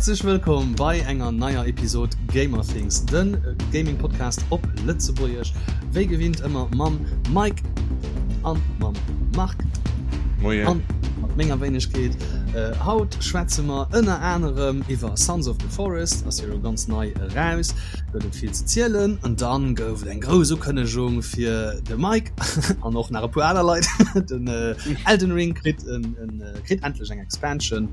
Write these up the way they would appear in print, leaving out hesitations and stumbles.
Häerzlech wëllkomm bei enger neier Episod Gamerthings, den Gaming Podcast op Lëtzebuergesch. Wéi gewinnt ëmmer mam Mike an mam Marc. Moien. An mat menger Wéinegkeet. Haut schwätze mer ënner anerem iwwer Sons of the Forest, ass jo elo ganz nei eraus, gëtt et vill ze zielen. An dann gouf et eng grouss Ukënnegung fir de Mike an och nach e puer aner Leit. Den Elden Ring kritt en kritt endlech eng Expansion.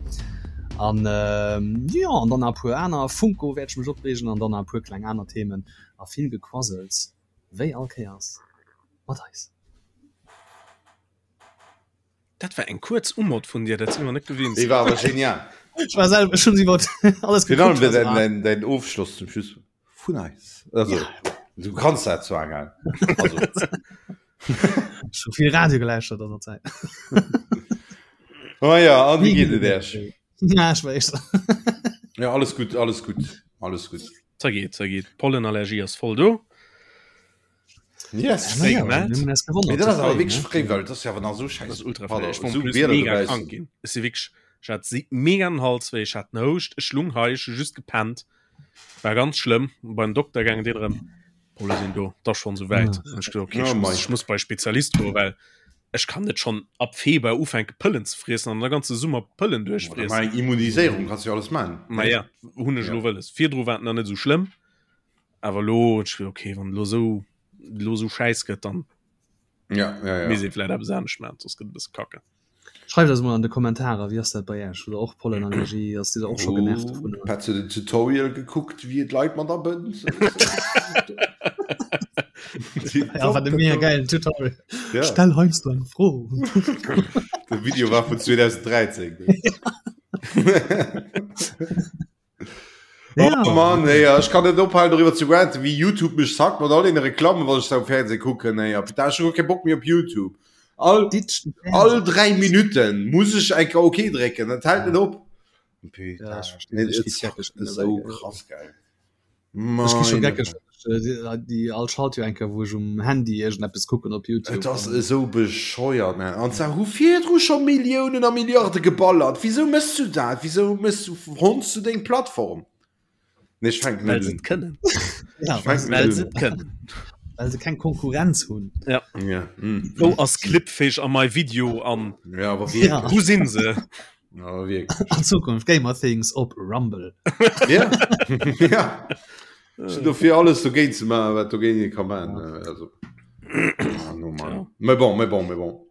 An ähm, jo, an dann nach e puer aner Funko wäert ech mech opreegen an dann nach e puer kleng aner Themen a vill Gequassels, wéi all Kéiers mat eis. Dat war eng kuerz Umod vun dir, dat si mer net gewinnt. Déi war awer genial. Ech war selwer, ech hunn iwwer alles Virun allem gekuckt, was däin, war. däin, däin Ofschloss zum Schluss vun eis. Also, Ja. du kanns dat zwar gell. Also. Ech hu vill Radio geläuschtert an der Zäit. Oh ja, an wéi geet et Äech? Ja, ech weess. Ja, alles gutt, alles gutt, alles gutt. Za geet, za geet. Pollenallergie ass voll do. Yes. Fréi Ja, gemellt. mir hunn eis gewonnert, Mee dat ze ass awer fréi, wierklech ne? fréi, well et ass jo awer nach esou Das schäiss ass ultra Pardon, fréi. Ech war esou plus Wieder mega dobaussen. krank ginn. Ech si wierklech, ech hat si mega den Hals wéi, ech hat den Houscht, ech lung hei, ech hu just gepennt. War ganz schlëmm. Beim Dokter gaangen, deen erëm, Polle sinn do, 't ass schonn esou wäit. Ah. An ech gesot, okay, Oh ech muss, mei. ech muss bei Spezialist goen, well ech kann net schonn ab Februar ufänke Pëllen ze friessen an de ganze Summer Pëllen Oder duerchfriessen. mei eng Immuniséierung kanns du jo alles man. Ma ja, hunn ech Ja. elo wëlles. Virdru war et nach net esou schlëmm, awer elo hunn ech gesot, okay, wann elo esou, elo esou schäiss gëtt, dann Ja, ja, ja. misst ee vläit eppes anescht maachen, soss gëtt et e bësse kacke. Schreift eis mol an de Kommentarer, wéi ass dat bei Iech? Hutt der och Pollenallergie? Ass Dir och scho genervt dovun? Oh, Petz huet en Tutorial gekuckt, wéi et Leit mat abënnt. Ja, wat e mega geilen Tutorial. Ja. Stell heiansdo eng Fro. De Video war vun 2013. Ja. Oh Mann, ey, ech kann net ophalen doriwwer ze ranten, wéi YouTube mech sackt mat all den Reklammen, wann ech da um Fernseh kucken. Ey, da ech hu kee Bock méi op YouTube. All, Ditsch den all Fernseh. 3 Minuten muss ech eng OK drécken, dat hält net op. Ja, ech verstinn, Nee, ech et gi sackt geckeg esou mittlerweile. krass geil. Ech gi scho Meine geckeg, déi all Schalt jo eng Kéier, wou ech um Handy iergendeppes kucken op YouTube. Et ass esou bescheuert, man. An zwar hu virdru scho Milliounen a Milliarde geballert. Wisou méchs du dat? Wisou méchs du, honns du deng Plattform? Nee, ech fänken Well net se un. et kënnen. Ja, Ech fänken Well net se un. et kënnen. well se keng Konkurrenz hunn. Ja. Ja, mm. Wou ass Clipfish a my video an Ja, awer Ja. wierklech. wou sinn se? Awer wierklech. An Zukunft Gamer Things op Rumble. Ja. Ja. Ech sinn dofir alles dogéint ze maachen, wat dogéint ee ka maachen. Also. Ah, no, Mann. Ja. Mais bon, mais bon, mais bon.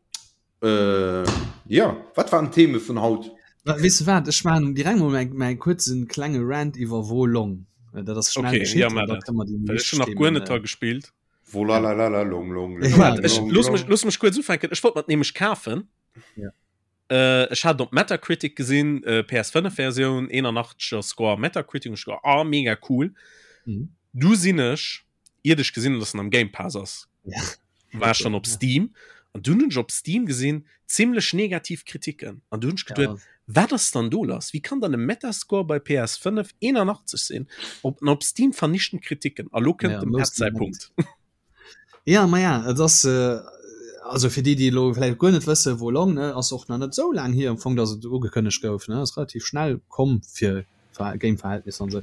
Äh, ja, wat waren d'Theme vun haut? Weess de wat, ech maachen direkt mol mäi, mäi kuerzen klenge Rant iwwer Wo Long. Dat ass schnell Okay, geschitt ja, an mar da dat. kënne mer déi Well ech wichteg hun nach guer Themen, net dra gespillt. Wolalalala, long, long, Ja, long, Waart, ech, long, looss mech, long. looss mech kuerz ufänken. Ech wollt mer et nämlech kafen. Ja. Äh, ech hat op Metacritic gesinn, äh, PS5 Versioun, 81er Score Metacritic, und ich gedacht, ah, mega cool. Mhm. Du sinn ech, iert ech gesinn, dass en am Game Pass ass, Ja. war ech dann op Ja. Steam. An dunn hunn ech op Steam gesinn, zimmlech negativ Kritiken. An du hunn ech geduet, Ja. wat ass dann do lass? Wie kann dann e Metascore bei PS5 81 sinn? Op, an op Steam vernichtend Kritiken. A lo kënnt Ja, dem most Ed säi Punkt. Ja, ma ja, et ass, also fir déi, déi elo vläicht guer net wësse Wo Long, ne, ass och nach net esou laang hier am Fong, datt et ugekënnegt gouf, ne, ass relativ schnell komm fir Game-Verhältnisser an esou.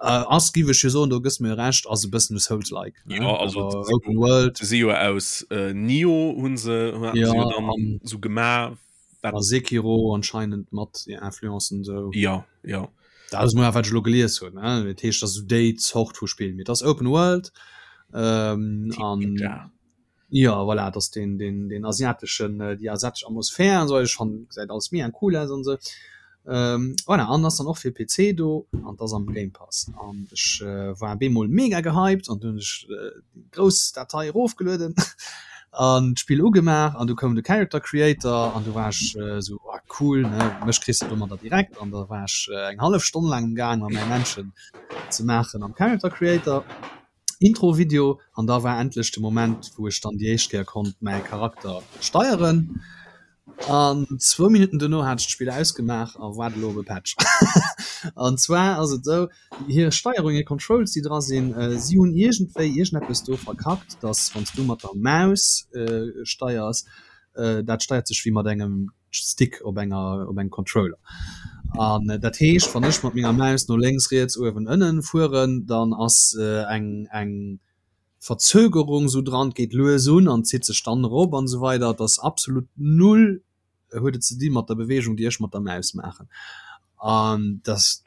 Ass, giff ech jo soen, do gëss mer jo Recht, ass e bëssen e Souls-like, ne, Ja, also awer se si Open World. se si jo aus Nioh hu se, haten Ja, se jo dann an esou gemaach. A Sekiro anscheinend mat Influencen esou. Ja, ja. Dat ass mol wat ech elo gelies hunn, ne? Dat heescht, dat ass esou déi Zort vu Spill. Mee et ass Open World ähm, an Ninja. ja, voilà, et ass deen, deen, deen asiateschen, déi asiatesch Atmosphär an esou. Ech fannen, gesäit alles mega cool aus an esou. Ähm, voilà, an ass dann och fir PC do an et ass am Game Pass. An ech war bemol mega gehypt an dunn hunn ech déi grouss Datei erofgelueden an d'Spill ugemaach an du koum de Character Creator an du war ech esou, oh cool, ne, mech kriss de domadder direkt. An da war ech eng hallef Stonn laang um gaang, mer mäi Männchen ze maachen am Character Creator. Intro-Video an da war endlech de Moment, wou ech dann déi éischt Kéier konnt mäi Charakter steieren. An zwou Minutten dono hat ech d'Spill ausgemaach a waart elo op e Patch. An zwar ass et esou, hir Steierung, hir Controls, déi dra sinn, si hunn iergendwéi iergendeppes do verkackt, dass wann s du mat der Maus steiers, dat steiert sech wéi mat engem Stick op enger op engem Controller. An dat heescht, wann ech mat menger Maus no lénks, riets, uewen, ënnen fueren, dann ass eng eng Verzögerung sou dran, et geet lues un an zitt sech dann erop an esou weider. Et ass absolut null huet et ze di mat der Beweegung, déi ech mat der Maus maachen. An dass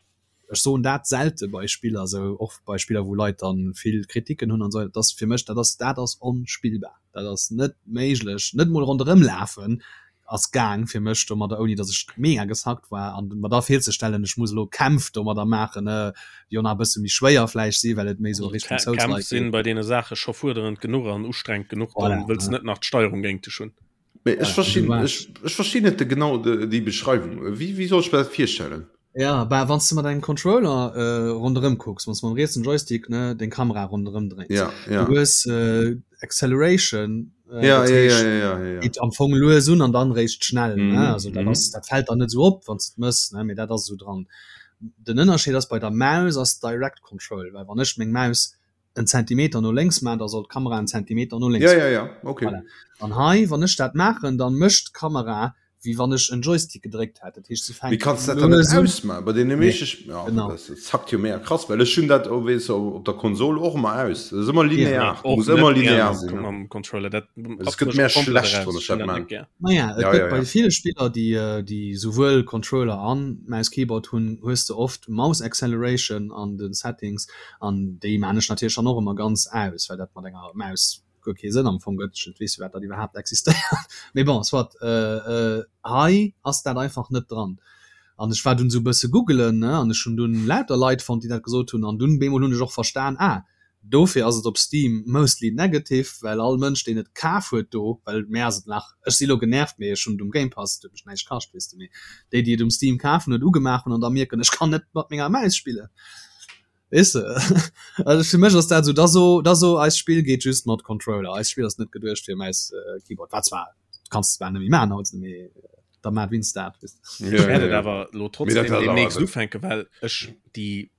ech soen dat selte bei Spiller, sou och bei Spiller wou Leit dann vill Kritiken hunn an esou, dat ass fir mech, dat ass dat ass onspillbar, dat ass net méiglech, net mol ronderëm lafen ass gaang fir mech domadder, ouni datt ech mega geshackt war an mer da virzestellen, ech muss elo Kämpf domadder maachen, ne, déi och nach e bësse méi schwéier vläicht si well et méi sou a Richtung Souls-like geet. Kämpf sinn bei deene Saache scho fuerderend genuch an ustrengend genuch, dann wëlls net nach d'Steierung géint dech hunn. Mee ech verstinn, ech, ech verstinn net genau déi Beschreiwung. Wéi, wéi soll ech mir dat virstellen? Ja, bah, wann s de mat engem Controller äh, ronderëm kucks, wann s de mam rietsen Joystick ne, deng Kamera ronderëm dréins, ja, ja. du hues äh, Acceleration, äh, ja, ja, ja, ja, ja, ja. geet am Fong lues un an dann réischt schnell. Mm, ne? Also dat, mm. ass, dat fält dann net sou op, wann s de mëss, ne? Mee dat ass sou dran. Den Ënnerscheed ass bei der Maus ass Direct Control, well wann ech meng Maus en Zentimeter no lénks maan, da soll d'Kamera en Zentimeter no lénks Ja, ja, ja, okay. Voilà. An hei, wann ech dat maachen, dann mécht d'Kamera wéi wann ech en Joystick gedréckt hätt. Dat heescht, se fänkt Mee kanns dat dann net ausmachen? Bei deene meeschte Sp ja, genau. das zackt jo mega krass, well ech hunn dat, oh, weess du, op der Konsol och ëmmer aus. Dat ass ëmmer linear, ja, muss ëmmer linear sinn. Mam Controller, dat Es gëtt mär schlecht, wann ech dat maan. Naja, et ja, gëtt ja, bei ja. ville Spiller, déi, äh, déi souwuel Controller an Maus-Keyboard hunn, hues de oft Mouse Acceleration an den Settings. An déi maan ech natierlech dann och ëmmer ganz aus, well dat mat enger Maus guer kee Sënn am Fong gëtt. Ech weess firwat dat iwwerhaapt existéiert. Mee bon, soit. Hei ass dat einfach net dran. An ech war dunn esou e bësse googelen, ne, an ech hunn dunn lauter Leit fonnt, déi dat gesot hunn. An dunn bemol hunn ech och verstan, ah, dofir ass et op Steam mostly negative, well all Mënsch, deen et kaf huet do, well mär ass et nach, ech si lo genervt, mee ech hunn et um Game Pass, et huet mech näischt kascht, weess de, mee déi, déi et um Steam kaf hunn, et ugemaach hunn an da mierken, ech kann net mat menger Maus spillen. Weess de? Also fir mech ass dat esou, da so, da so eist Spill geet just mat Controller, eist Spill ass net geduecht fir Maus, Keyboard. Wat zwar, du kanns et zwar net méi maachen haut, mee da maach wéinst dat, weess de. Ech wäert et awer elo trotzdem deemnächst ufänken, well ech déi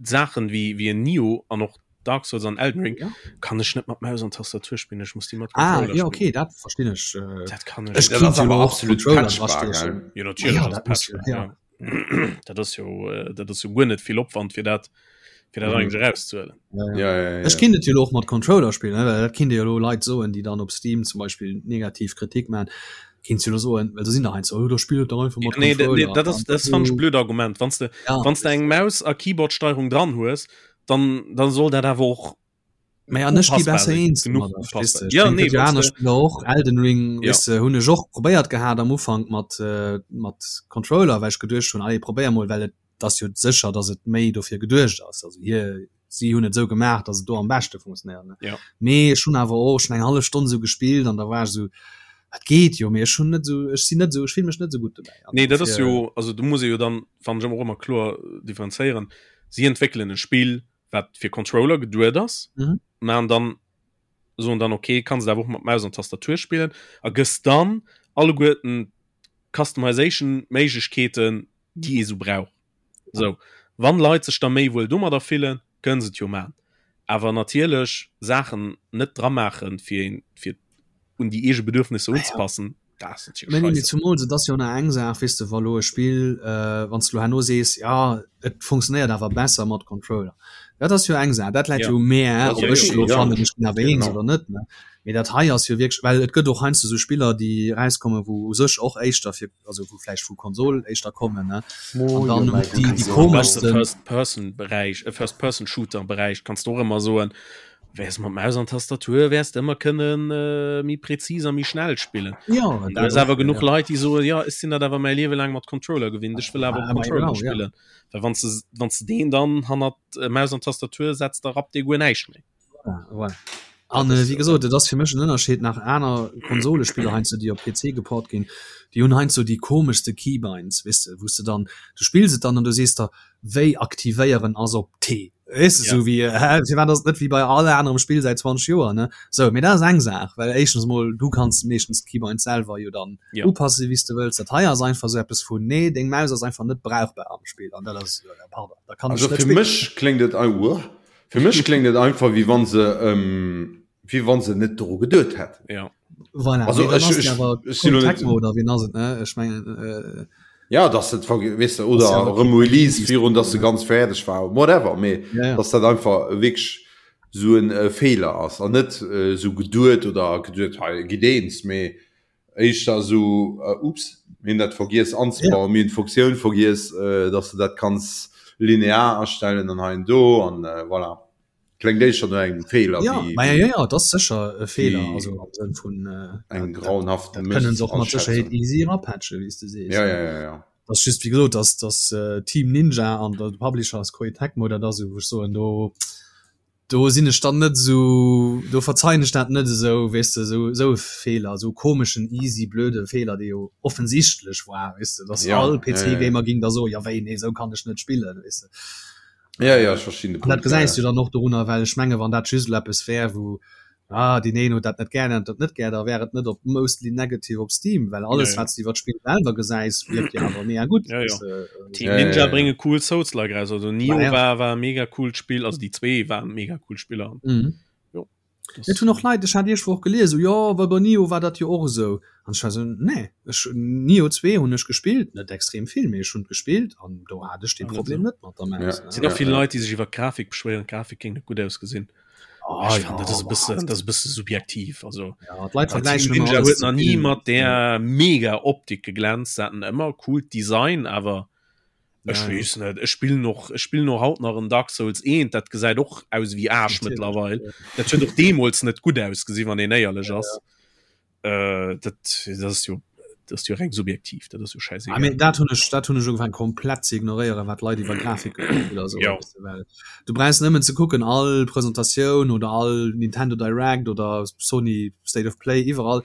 Saachen wéi, wéi en Nioh an och Dark Souls an Elden Ring ja. kann ech net mat Maus an Tastatur spillen, ech muss déi mat ah, Controller ja, okay, dat verstinn ech. Dat kann ech. Ech dat ass awer absolut patchbar, gell? Jo, natierlech ja, ass patchbar, ja. ja. Dat ass jo äh, dat ass jo guer net vill Opwand fir dat fir dat mhm. eigentlich rauszuhalen. Ja, ja. Ja, ja, ja. Ech kinnt et jo och mat Controller spillen, well dat kinnt jo lo Leit soen, déi dann op Steam zum Beispiel negativ Kritik man. Kinnt jo soen, well do sinn der heiansdo, oh, da spill et dach einfach mat nee, Controller. Nee, dat ass dat fand ech blöd Argument. Wanns de ja, wanns de eng Maus a Keyboardsteierung dran hues, dann dann soll dat awer och Mä an ech gi besser eens domadder, verstees de? Ja, nee, aner Spiller och Elden Ring ja. weißt du, hunn ech och probéiert gehat am Ufank mat äh, mat Controller, well ech geduecht hunn, allez probéier mol, well et ass jo sécher, datt et méi dofir geduecht ass. Also hier si hunn et esou gemaach, datt et do am beschte funktionéiert. Ne? Ja. Mee ech hunn awer och schon eng hallef Stonn esou gespillt an da war ech esou, et geet jo, mee ech hunn net esou, ech sinn net esou, ech fill mech net esou gutt dobäi. An Nee, dat ass jo, also do muss ee jo dann, fannen ech, och ëmmer kloer differenzéieren. Si entwéckelen e Spill, wat fir Controller geduet ass mhm. man dann so dann okay kannst du auch mat Maus an Tastatur spielen a gëss dann alleguerten Customization Méiglechkeeten déi ee so brauch so wann Leit sech da méi wuel domadder fillen kënnen se et jo man awer natierlech Saachen net dra maachen fir fir un déi eege Bedürfnisse unzepassen Zumols et ass jo nach eng Saach, weess de, wa lo e Spill, wann s de lo herno sees, jo et funktionéiert awer besser mat Controller, dat ass jo eng Saach, dat läit jo u mär, ob ech lo fannen, ech ginn awer eens oder net, ne. Mee dat hei ass jo wierklech, well et gëtt och heiansdo esou Spiller, déi erauskommen, wou u sech och éischter fir, also wou vläicht vu Konsol éischter kommen, ne, an dann déi déi komeschsten. First-Person-Beräich, First-Person-Shooter-Beräich kanns de och ëmmer soen, Wärs mat Maus an Tastatur wärs de ëmmer kënnen äh, méi präzis a méi schnell spillen. Ja, An da ass awer genuch ja. Leit, déi soen, ja, ech sinn dat awer mäi Liewe laang mat Controller gewinnt, ech wëll awer Ah, Controller genau, ja. spillen. Well wann s wann s de deen dann hannert äh, Maus an Tastatur setzt, da rappt dee guer näischt méi. Voilà, voilà. An äh, wéi gesot, et ass fir mech en Ënnerscheed nach aner Konsolespiller heiansdo, déi op PC geport ginn, déi hunn heiansdo déi komeschste Keybinds, weess de, wou s de dann, du spills et dann an du sees der, wéi aktivéieren ass op T. Weess de, Ja. sou wéi, hä, firwat ass et net wéi bei all anerem Spill säit 20 Joer, ne? Sou, mee dat ass eng Saach, well éischtens mol, du kanns meeschtens d'Keybinds selwer jo dann Ja. upassen, wéi s de wëlls. Dat hei ass einfach sou eppes vun, nee, deng Maus ass einfach net brauchbar am Spill an dat ass, äh, pardon, da kann Also ech net fir spillen. mech kléngt et ei uah, fir mech kléngt et einfach wéi wann se ähm, wéi wann se net doru geduet hätten. Ja. Voilà, Also mee dann ech ass et ech awer ech sinn Koei lo net Tecmo oder wien ass et, ne? Ech mengen, äh. Ja dass et weess de oder ja, erëm Release virun dass se ganz fäerdeg war whatever mee ja, ja. dass dat einfach wierklech sou en äh, Feeler ass an net äh, sou geduet oder geduet hei gitt eens mee éischter sou äh, ups mir hunn dat vergiess anzebauen ja. mir hunn d'Funktioun vergiess äh, dass du dat kanns linear astellen an hei an do an äh, voilà. Klengt éischter no engem Feeler ja, wéi, ja, ja, ja, dat ass sécher e Feeler also am Sënn vun äh, engem grauenhaften kënnen se och mat Sécherheet easy erapatchen, wéi s de sees. Ja, ja, ja, ja. Dat ass just wéi gesot, dass dass äh, Team Ninja an der Publisher ass Koei Tecmo, dat ass esou wou ech soen do do sinn ech dann net esou do verzeien ech dat net esou weess de esou esou e Feeler, esou komeschen easy blöde Feeler, dee jo offensichtlech war weess de, dass ja, all ja, ja. PC-Gamer ging da soen, ja wéi nee esou kann ech net spillen weess de. Ja, ja, ech verstinn de An dat Punkt, ja, gesäis ja. du dann och dorunner, well ech menge wann dat just elo eppes wär, wou ah deen een huet dat net gär, deen huet dat net gär, da wär et net op mostly negative op Steam, well Ja, alles ja. wat s de iwwer d'Spill selwer gesäis, wierkt jo awer mega gutt. Ja, ja. Weess de, Team Ja, ja, Ninja ja, ja. brénge cool Souls-like raus. Also Nioh Bah ja. war, war e mega coolt Spill, also déi zwee waren mega cool Spiller. Mhm. Jo. Et hunn och Leit, ech hat iech Woch gelies, esou, jo, well bei Nioh war dat jo och esou. An ech war esou, nee, ech, Nioh 2 hunn ech gespillt, net extrem vill, mee ech hunn et gespillt an do hat ech dee Problem net mat der Maus. Et sinn och vill Leit, déi sech iwwer d'Grafik beschwéieren, d'Grafik géing net gutt ausgesinn. Ah, Ech fannen, dat ass e bëssen, dat ass e bësse subjektiv. Also, Ja, d'Leit Team vergläichen ëmmer Ninja alles huet ze nach ni vill. mat där mega Optik geglänzt, se haten ëmmer coolt Design, awer Ech Ja, weess net, ech spillen och, ech spillen och haut nach en Dark Souls 1, dat gesäit och aus wéi Aasch Natierlech, mëttlerweil. ja. Dat huet och deemools net gutt ausgesinn, wann een éierlech ass. Äh, dat, dat ass jo, dat ass jo reng subjektiv, dat ass jo Ah, schäisegal. mee dat hunn ech, dat hunn ech ugefaangen komplett ze ignoréieren, wat Leit iwwer Grafik oder sou Ja. weess de, well du brauchs nëmmen ze kucken, all Presentatioun oder all Nintendo Direct oder Sony State of Play, iwwerall,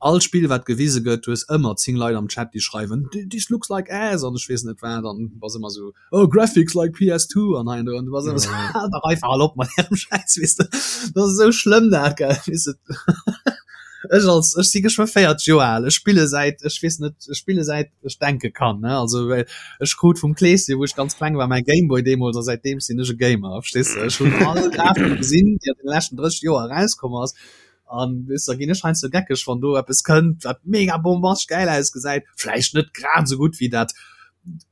All Spill wat gewise gëtt, du hues ëmmer 10 Leit am Chat déi schreiwen this looks like ass an ech weess net wat an du bass ëmmer sou oh graphics like PS2 an hei an do an du bass ëmmer sou haal dach einfach al op mat ärem Schäiss weess de. Dat ass esou schlëmm dat gell weess de. Ech als ech si geschwë 40 Joer al, ech spille säit ech weess net ech spille säit ech denke kann ne also well ech krut vum Kleeschen wou ech ganz kleng war mäi Gameboy deemools a säitdeem sinn ech e Gamer verstees de. Ech hunn all Grafik gesinn déi an den leschten 30 Joer erauskomm ass An weess da ginn ech heiansdo geckeg, wann do eppes kënnt, wat mega bombastesch gäil ausgesäit, vläicht net grad esou gutt wéi dat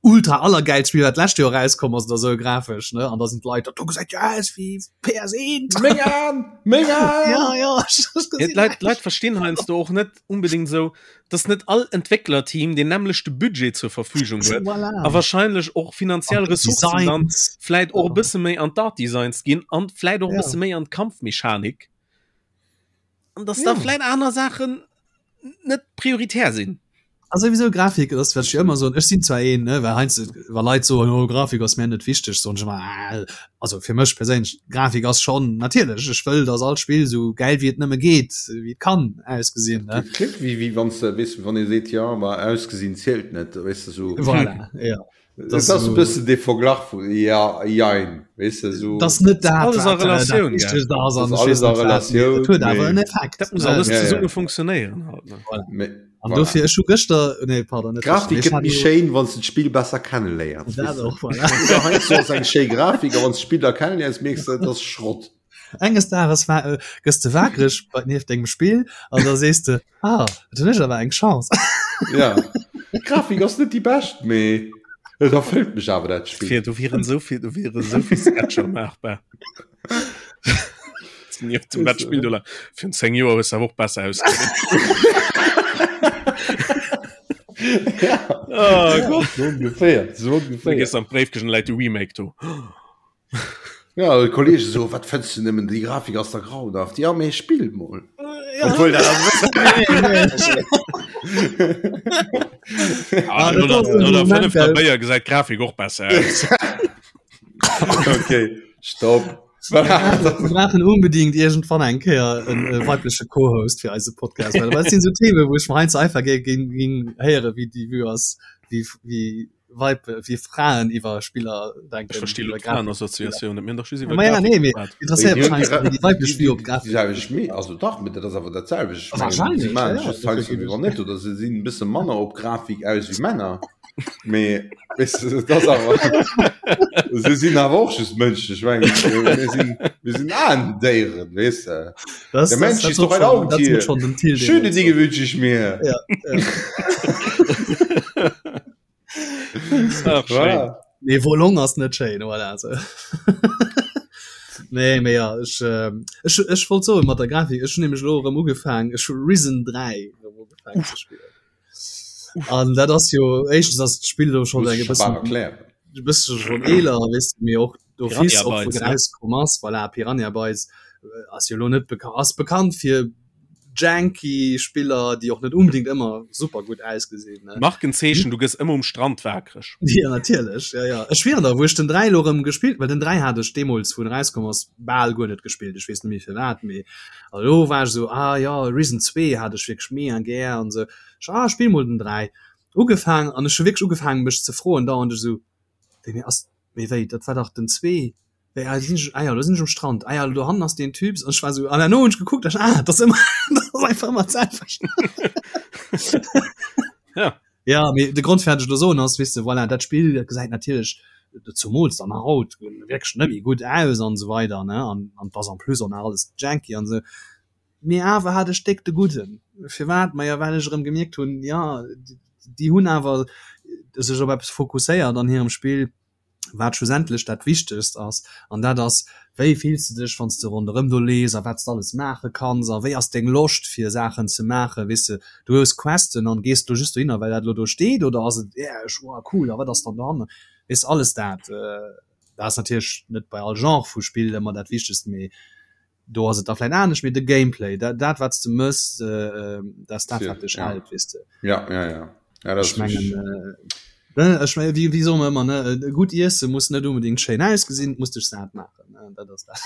ultra allergäilt Spill, wat d'lescht Joer erauskomm ass oder esou grafesch, ne? An da sinn d'Leit, dat do gesäit jo aus wéi PS1! Meng Aen! Meng Aen! Ja, ja, ech Ja, gesinn d'Leit, d'Leit verstinn heiansdo och net unbedingt esou, dass net all Entwécklerteam deen nämmlechte Budget zur Verfügung huet Voilà. a wahrscheinlech och finanziell An Ressourcen dann Designs. vläit och e bësse méi an d'Art-Designs ginn an vläit och e Ja. bësse méi an d'Kampfmechanik. An dass Ja. da vläit aner Saachen net prioritär sinn. Also sowieso Grafik, das wat ech ëmmer soen, ech sinn zwar een, ne, well heiansdo wa Leit soen, oh Grafik ass mir net wichteg, soen ech ëmmer, ah, also fir mech perséinlech, Grafik ass schonn natierlech, ech wëll, dass all Spill esou gäil wéi et nëmme geet, wéi et kann ausgesinn, ne. Dat kléngt wéi wéi wann s de, weess, wann ee seet, jo, ma ausgesinn zielt net, weess de, sou. Voilà, ja. Das ass e bëssen dee Verglach vu ja, jein, weess de, sou. Das net dat, Alles a wat, äh, dat Relatioun, gell? Wichtegst ass an Das ech alles weess a net wat, mee Relatioun, et huet awer mee en Effekt, Dat muss ne? alles Ja, ja. zesumme funktionéieren halt, ne? Voilà. Mee An voilà. dofir, ech hu gëschter, nee, pardon, net gëschter, Grafik mee ech gëtt hat méi jo schéin, wann s de d'Spill besser kenneléiers, dat weess de. och, voilà. Oder heiansdo ass eng schéi Grafik, a wann s d'Spill da kenneléiers, mierks de, et ass Schrott. Enges Dages war, äh, gëss de wakereg bei nieft dengem Spill an da sees de, ah, dat hunn ech awer eng Chance. Ja, d'Grafik ass net déi bescht, mee et erfëllt mech awer dat Spill. Fir, do wieren esou vill, do wieren esou vill Sketcher maachbar. Nieft dem dat Spill do la- Virun 10 Joer hues de awer och besser ausgesinn. Ja, Oh Gott. so ongeféier, so Da ongeféier. gees an d'Bréifkëscht an läit de Remake do. Ja, de Kollege so, wat fënns du nëmmen, déi Grafik ass da grauenhaft. Ja, mee spill mol. Ja. Obwohl dat ass Ah, Ah, dat no ass der, en no der Moment, fënnefter gell? Béier gesäit d'Grafik och besser aus. Okay, stopp. Wir brauchen unbedingt irgendwann eng Kéier en äh, weibleche Co-Host fir eise Podcast, well dat sinn so Themen, wou ech mer heiansdo einfach géing géing géing héiere wéi déi Vue ass, wéi wéi Weib wéi Fraen iwwer Spiller denken. Ech versti lo iwwer Grafik. d'Fraenassociatioun net. Mir hunn dach just iwwer Ma ja, Grafik nee, mee geschwat. interesséiert mech heiansdo, wéi déi weiblech Vue op Grafik Déi selwecht Mee, also dach, mee dat ass awer dat selwecht. Ech mengen, Wahrscheinlech, si maachen ja, ja, just heiansdo dofir wéi wann net, oder se sinn e bësse manner op Grafik aus wéi Männer. Mee weess de, dat ass awer, se sinn awer och just Mënschen. Ech mengen, mir sinn, mir sinn Aendéieren, weess de. Das, Der das, Mensch das ist doch wird ein schon, das wird Augentier. schon den Till Schöne deemools Dinge soen. wünsche ich mir. Ja, ja. Ach, Nee Wo Long ass net schéin voilà, so. Nee mee ja ech, äh, ech, ech wollt soen mat der Grafik ech hunn nämlech elo erëm ugefaang ech hu Risen 3 erëm ugefaang ze spillen. An dat ass jo éischtens ass d'Spill do schonn eng e bëssen e bësse schonn eeler weess de mee och d'office och wou erauskomm ass voilà Piranha Bytes ass jo elo net beka ass bekannt fir janky Spiller, déi och net unbedingt ëmmer super gutt ausgesinn. Ne? Markenzeechen, du gëss ëmmer um Strand waakreg. Ja, natierlech. Ja, ja. Ech schwieren der, wou ech den 3 lo rëm gespillt, well den 3 hat ech deemools, wou en erauskomm ass, bal guer net gespillt. Ech weess net méi firwat, mee a lo war ech esou, ah ja, Risen 2 hat ech wierklech mega gär an esou. Ech, ah, spill mol den 3. Ugefaang an ech hu wierklech ugefaangen, mech ze froen dauernd, ech esou, wéi, mee ass, mee wéi, dat war dach den 2. Wéi, ah, sinn ech, ah ja, do sinn ech um Strand, ah ja, do hannen ass deen Typ, an ech war sou, an herno hunn ech gekuckt, ech, ah, dat ass ëmmer, dat ass einfach ëmmer d'selwecht. Ja. Ja, mee de Grond fir wat ech elo soen ass, weess de, voilà, dat Spill, dat gesäit natierlech, zumools dann nach haut, wierklech net méi gutt aus an esou weider, ne, an, an 't ass en plus och nach alles janky an esou, mee awer hat ech déck de Gudden. Firwat? Maja, well ech erëm gemierkt hunn, ja, déi hunn awer sech op eppes fokusséiert an hirem Spill, wat schlussendlech dat Wichtegst ass, an dat ass, wéi fills de dech, wann s de ronderëm do lees a wat s de alles maache kanns a wéi ass deng Loscht fir Saachen ze maachen, weess de, du hues Questen an gees do just dohinner, well dat elo do steet oder ass et, yeah, ech, wow, cool, a wat ass dann dohannen, weess de, alles dat. Dat ass natierlech net bei all Genre vu Spill ëmmer dat Wichtegst, mee do ass et da vläit anescht, mee de Gameplay, dat, dat wat s de mëss, dat ass dat, wat dech hält, weess de. Ja, ja, ja. ja dat ech mengen, äh, ech mengen, wéi, wéi soe mer ëmmer, ne, e gutt Iesse muss net unbedingt schéin ausgesinn, et muss dech sat maachen, ne, dat ass dat.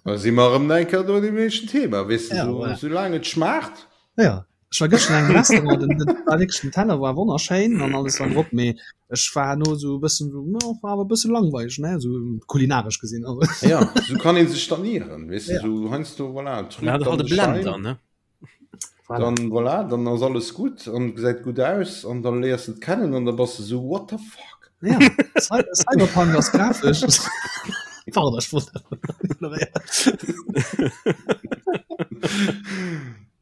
Da si mer erëm eng Kéier do an deem éischten Thema, weess de, ja, so, voilà. soulaang et schmaacht. Ja. Ech war gëschter an engem Restaurant, den, den, war wierklech, den Teller war wonnerschéin an alles war drop, mee ech war herno sou e bëssen sou, no, war awer e bësse langweileg, ne, sou kulinaresch gesinn. Also. Ja, sou kann een sech dann ieren, weess de, ja. sou heiansdo, voilà, trübt ja, dann de Blender, ne? Voilà. Dann, voilà, dann ass alles gutt an gesäit gutt aus an dann léiers de et kennen an da bass de sou, what the fuck? Ja, Cyberpunk ass grafesch. Pardon, ech wollt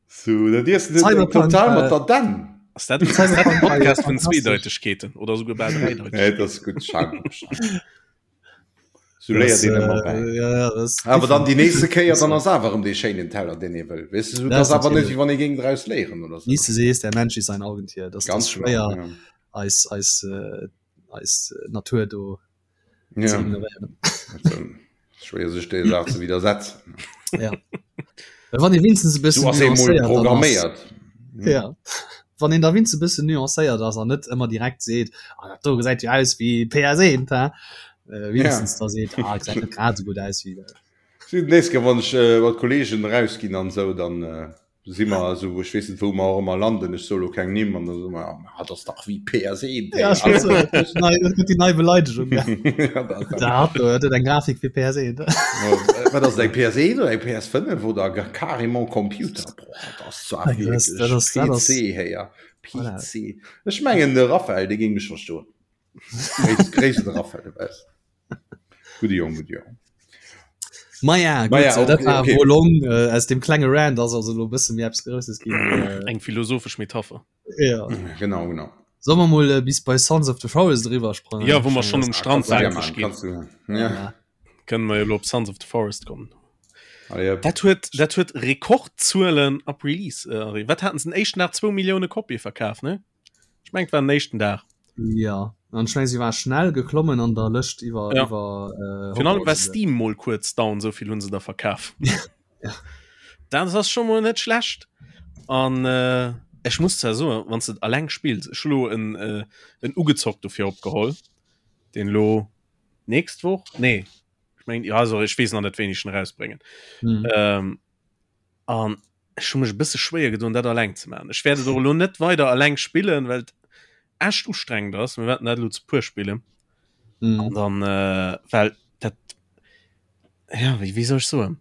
So, dat iess du Cyberpunk, total mat äh, der Dänn. Ass dat dat en Podcast vun Zweedeutegkeeten oder souguer bal Dräideutegkeeten? Nee, dat ass gutt. Schau, schau. So léiert een ëmmer bäi. Äh, ja, ja, das Awer dann déi nächste Kéier, dann ass awer erëm dee schéinen Teller, deen ee wëll. Weess du, das ass awer net, wéi wann ee géing draus léieren oder sou. Wie s du sees, der Mensch ist ein Augentier. Das, das ist schwéier, ja. eis, eis, äh, eis Natur do ja. ze ignorieren. Schwéier sech der Saach ze widersetzen. Ja. Wann ee winstens e bëssen nuancéiert programméiert. Hm. Ja. Wann een da winst e bëssen nuancéiert ass an net ëmmer direkt seet ah, dat do gesäit jo aus wéi PS1 ha äh, winstens ja. da seet ah, gesäit net grad sou gutt aus wéi. Nächst Kéier wann ech äh, mat Kollegen rausginn an sou, dann äh, si mer esou, ech weess net wou mer och ëmmer landen, ech soe lo keng Nimm, an da soe mer, ah dat ass dach wéi PS1. Ja, ech wollt soen, dat gëtt nei, dat gëtt déi nei Beleidegung, ja. Ja, dat Dat hat do, dat huet eng Grafik wéi PS1. Wat ass et, eng PS1 oder eng PS5 oder gar carrément Computer? Boah, dat ass zwar Dat ass, dat wierklech ass, dat ass, PC, héier, voilà. PC. Ech mengen de Raphael, dee géing mech verstoen. Gréiss, Gréiss de Raphael, de weess. Gudde Jong, gudde Jong. Maja, gut, Maja, äh, dat okay, war okay. Wolong äh, aus dem klenge Rand ass also lo bësse méi eppes Grousses ginn. Äh, Eng philosophesch Metapher. ja. Genau, genau. Soll mer mol äh, bis bei Sons of the Forest eriwwer sprangen? Ja, wou mer schonn um Strand Kannst du waakreg machen, ginn. kannst du, ja. Ja. Kënnen mer jo lo op Sons of the Forest kommen. Ah, ja. Dat huet, dat huet Rekordzuelen ab Release. Äh, wat haten se den éischten Dag? Zwou Millioune Kopie verkaf, ne? Ech mengen, et war den éischten Dag. Ja, an ech mengen, si war schnell geklommen an der Lëscht iwwer, Ja. iwwer äh, Virun allem war Hogwarts. Steam mol kuerz down, esou vill hunn se der verkaf. Ja. Dat ass scho mol net schlecht. An äh, ech muss zwar soen, wann s de et alleng spills, ech hu lo en, äh, en ugezockt dofir opgeholl, deen lo nächst Woch, nee, ech mengen, ja, also ech weess nach net, wéini ech en erausbréngen. Hm. Ähm, an ech hu mech e bësse schwéier gedoen, dat alleng ze maachen. Ech wäert et och elo net weider alleng spillen, well et echt ustrengend ass. Mir wäerten dat elo zu puer spillen. Mhm. An dann, äh, well dat, ja, wéi, wéi soll ech soen?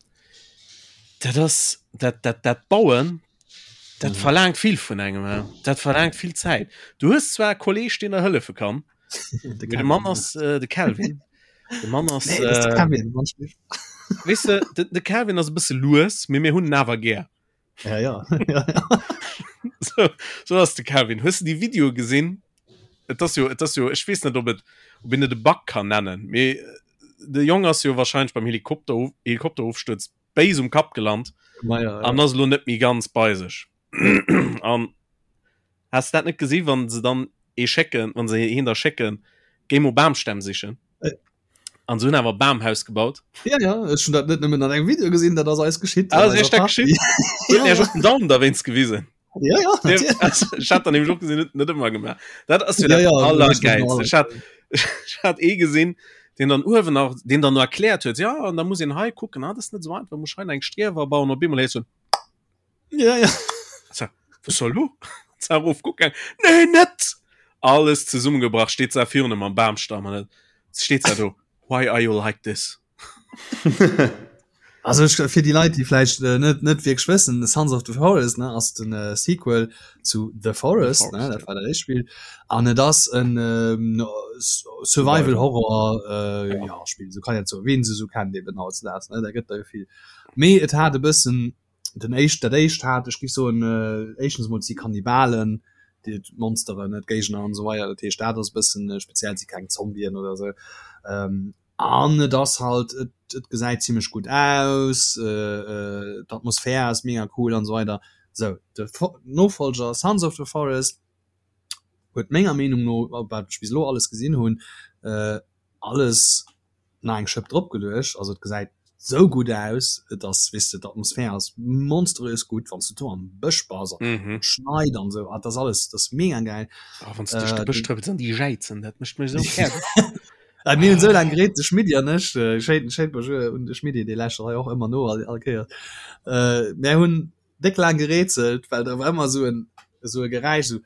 Dat ass, dat, dat, dat Bauen, dat Mhm. verlaangt vill vun engem, hä? Dat verlaangt vill Zäit. Du hues zwar e Kolleg, deen der hëllefe kann, De mee de Mann Kevin. ass, äh, de Kelvin. De Mann ass, Nee, das ist de äh, Kevin, manchmal. Weess de, de, de Calvin ass e bësse lues, mee mir hunn en awer gär. Ja, ja. ja, ja. So, so ass de Calvin. Hues du déi Videoe gesinn? Et ass jo, et ass jo, ech weess net, ob et, ob een et e Bug kann nennen, mee de Jong ass jo wahrscheinlech beim Helikopter, Helikopterofstuerz béis um Kapp gelant Ma ja, ja. an ass elo net méi ganz bei sech. An has de dat net gesi wann se dann ee schécken, wann se hien da schécken, géi mol Bamstämm sichen. Äh. An se hunn awer e Bamhaus gebaut. Ja, ja, ech hunn dat net nëmmen an engem Video gesinn, dat ass eis geschitt. Ah, ass iech dat geschitt? Ja, Huet Iech och den Daumen derwéinst gewisen? Ja, ja, natierlech. Ech hat dann nämlech och gesinn, huet net ëmmer gemaach. Dat ass jo Ja, dat ja, also, Allergäilst. Ech hat, ech hat ee gesinn, deen dann uewen nach, deen dann no erkläert huet, ja, an da muss een hei kucken, ah, dat ass net esou einfach, muss hei nach eng Striewer bauen, op eemol héiers du en Ja, ja. So, was soll lo? Zar erof kucken. Nee, net! Alles zesummengebrach, steet se virun em am Bamstamm an et steet se do, Why are you like this? Also ech, fir déi Leit, déi vläicht äh, net net wierklech wëssen, Sons of the Forest ne, ass den äh, Sequel zu The Forest, The ne, Forest, dat war dat éischt Spill. An et ass en ähm, Survival Horror äh, Ja. ja, Spill, sou kann een et soen, wien se sou kennt eben hautdesdaags, ne, da gëtt der jo vill. Mee et hat e bëssen den éischt dat éischt hat ech géif soen éischtens emol et si Kannibalen déi d'Monsteren ne d'Géigner an esou weider dat heescht dat ass e bëssen speziell et si keng Zombien oder esou an et ass halt et et gesäit zimlech gutt aus d'Atmosphär ass mega cool an esou weider sou de Nofolger Sons of the Forest huet menger Meenung no wat ech bis elo alles gesinn hunn alles nach eng Schëpp drop geluecht, also et gesäit sou gutt aus, et ass weess de d'Atmosphär ass monströs gutt, wann s du do am Bësch bass an Mhm. et schneit an sou, ah dat ass alles, dat ass mega gäil. Oh, wann s du duerch de Äh, Bësch trëppels an déi jäizen, dat mécht mech esou fäerdeg. Äh, mir hunn sou laang gereet, de Schmidti an ech, äh, schéin schéin Bonjour un de Schmidti, dee lauschtert hei och ëmmer no all all Kéiers, äh, mär hunn déck laang gerätselt, well da war ëmmer sou en esou e Geräisch, sou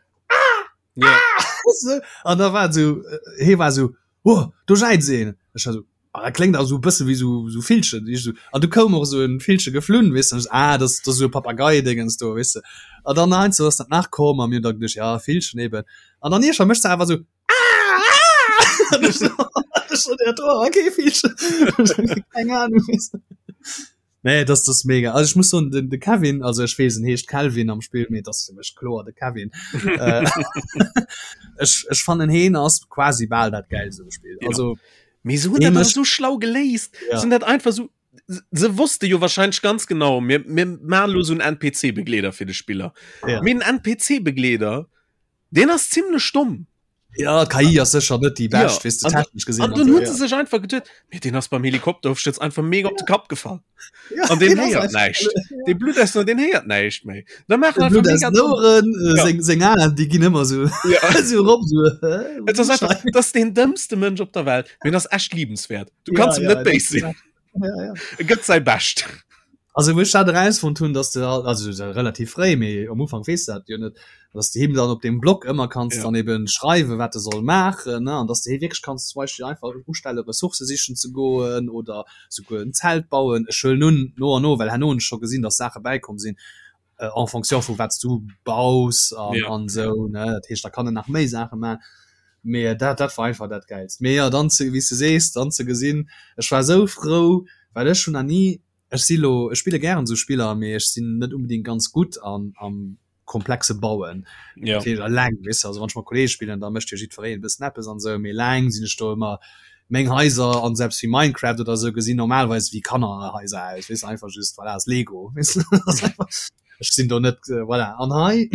Ja. So, an da war so äh, hee war so oh, do jäizt een. Ech war so ah, dat kléngt awer sou e bësse wéi sou sou Villchen. Ich so, an du koum och sou en Villche geflunn, weess de, ah, dat ass sou e Papagei-Dingens do, weess de. An dann heiansdo ass dat nach komm a mir hunn da geduecht, ja, Villchen eben. An dann iergendwann mécht se awer sou ah, ah! An ech so, ech so, ja, do war kee Villchen. Keng Ahnung, weess de. Nee, das das mega. Also ich muss so den, den Kevin, also ich wees en heescht Kelvin am Spiel, mee das fir mech kloer de Kevin. äh, ech, ech fannen heen ass quasi bal dat geilste um Spiel. Ja. Also Mee se hunn Hee dat awer mécht- so schlau geléist. Ja. Se hunn dat einfach so se wosste jo wahrscheinlech ganz genau, mir, mir maachen lo so en NPC-Begleeder fir de Spiller. Ja. Mee en NPC-Begleeder, deen ass zimmlech domm. Ja, KI ass sécher net déi bescht, Ja, weess de, an- technesch gesinn. An dann hunn ja. se sech einfach geduet, mee deen ass beim Helikopterofstürz einfach mega op de Kapp gefall. Ja, An deen deen ass héiert einfach- näischt. Dee Blutt aus, deen héiert näischt méi. Da maachen De einfach Blutt aus mega den Oueren, äh, Ja. seng, seng Aen, déi ginn ëmmer sou, Ja. sou erop, sou, hä? Et ass einfach, dat ass deen dëmmste Mënsch op der Welt, mee en ass echt liebenswäert. Du Ja, kanns em ja, net béis sinn. Ja, ja. E gëtt säi Bescht. Also wou ech dat erausfonnt hunn, dass de halt, also se relativ fréi, mee am Ufank weess de dat jo net, dass de him dann op deem Block ëmmer kanns Ja. dann eben schreiwen, wat e soll maachen, ne, an dass de hie wierklech kanns zum Beispill einfach ustelle Ressourcë sichen ze goen oder souguer en Zelt bauen. Ech huelen un, no an no, well herno hunn ech scho gesinn, dass Saache bäikomm sinn, äh, en fonction vu wat s du baus an, Ja. an esou, ne, dat heescht, da kann en nach méi Saache maachen. Mee dat, dat war einfach dat Gäilst. Mee jo, dann ze, wéi s de sees, dann ze gesinn, ech war esou frou, well ech hunn nach ni Ech si lo, ech spille gären esou Spiller, mee ech sinn net unbedingt ganz gutt an am komplexe Bauen. Ja. Dat heescht eleng, weess de, also wann ech mat Kollege spillen, da mécht jo jiddwereen e bëssen eppes an esou, mee eleng sinn ech do ëmmer meng Haiser an selbst wéi Minecraft oder esou gesinn normalerweis wéi Kannerhaiser aus, weess de, einfach just voilà, ass Lego, weess de, ass einfach, ech sinn do net, voilà. An hei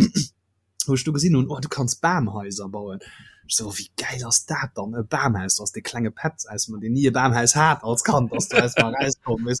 wou ech du gesinn hunn, oh du kanns Bamhaiser bauen. Ech so, oh, wéi gäil ass dat dann, e Bamhaus, du ass dee klenge Petz aus mer, deen ni e Bamhaus hat als Kand, ass do aus mer erauskomm, weess.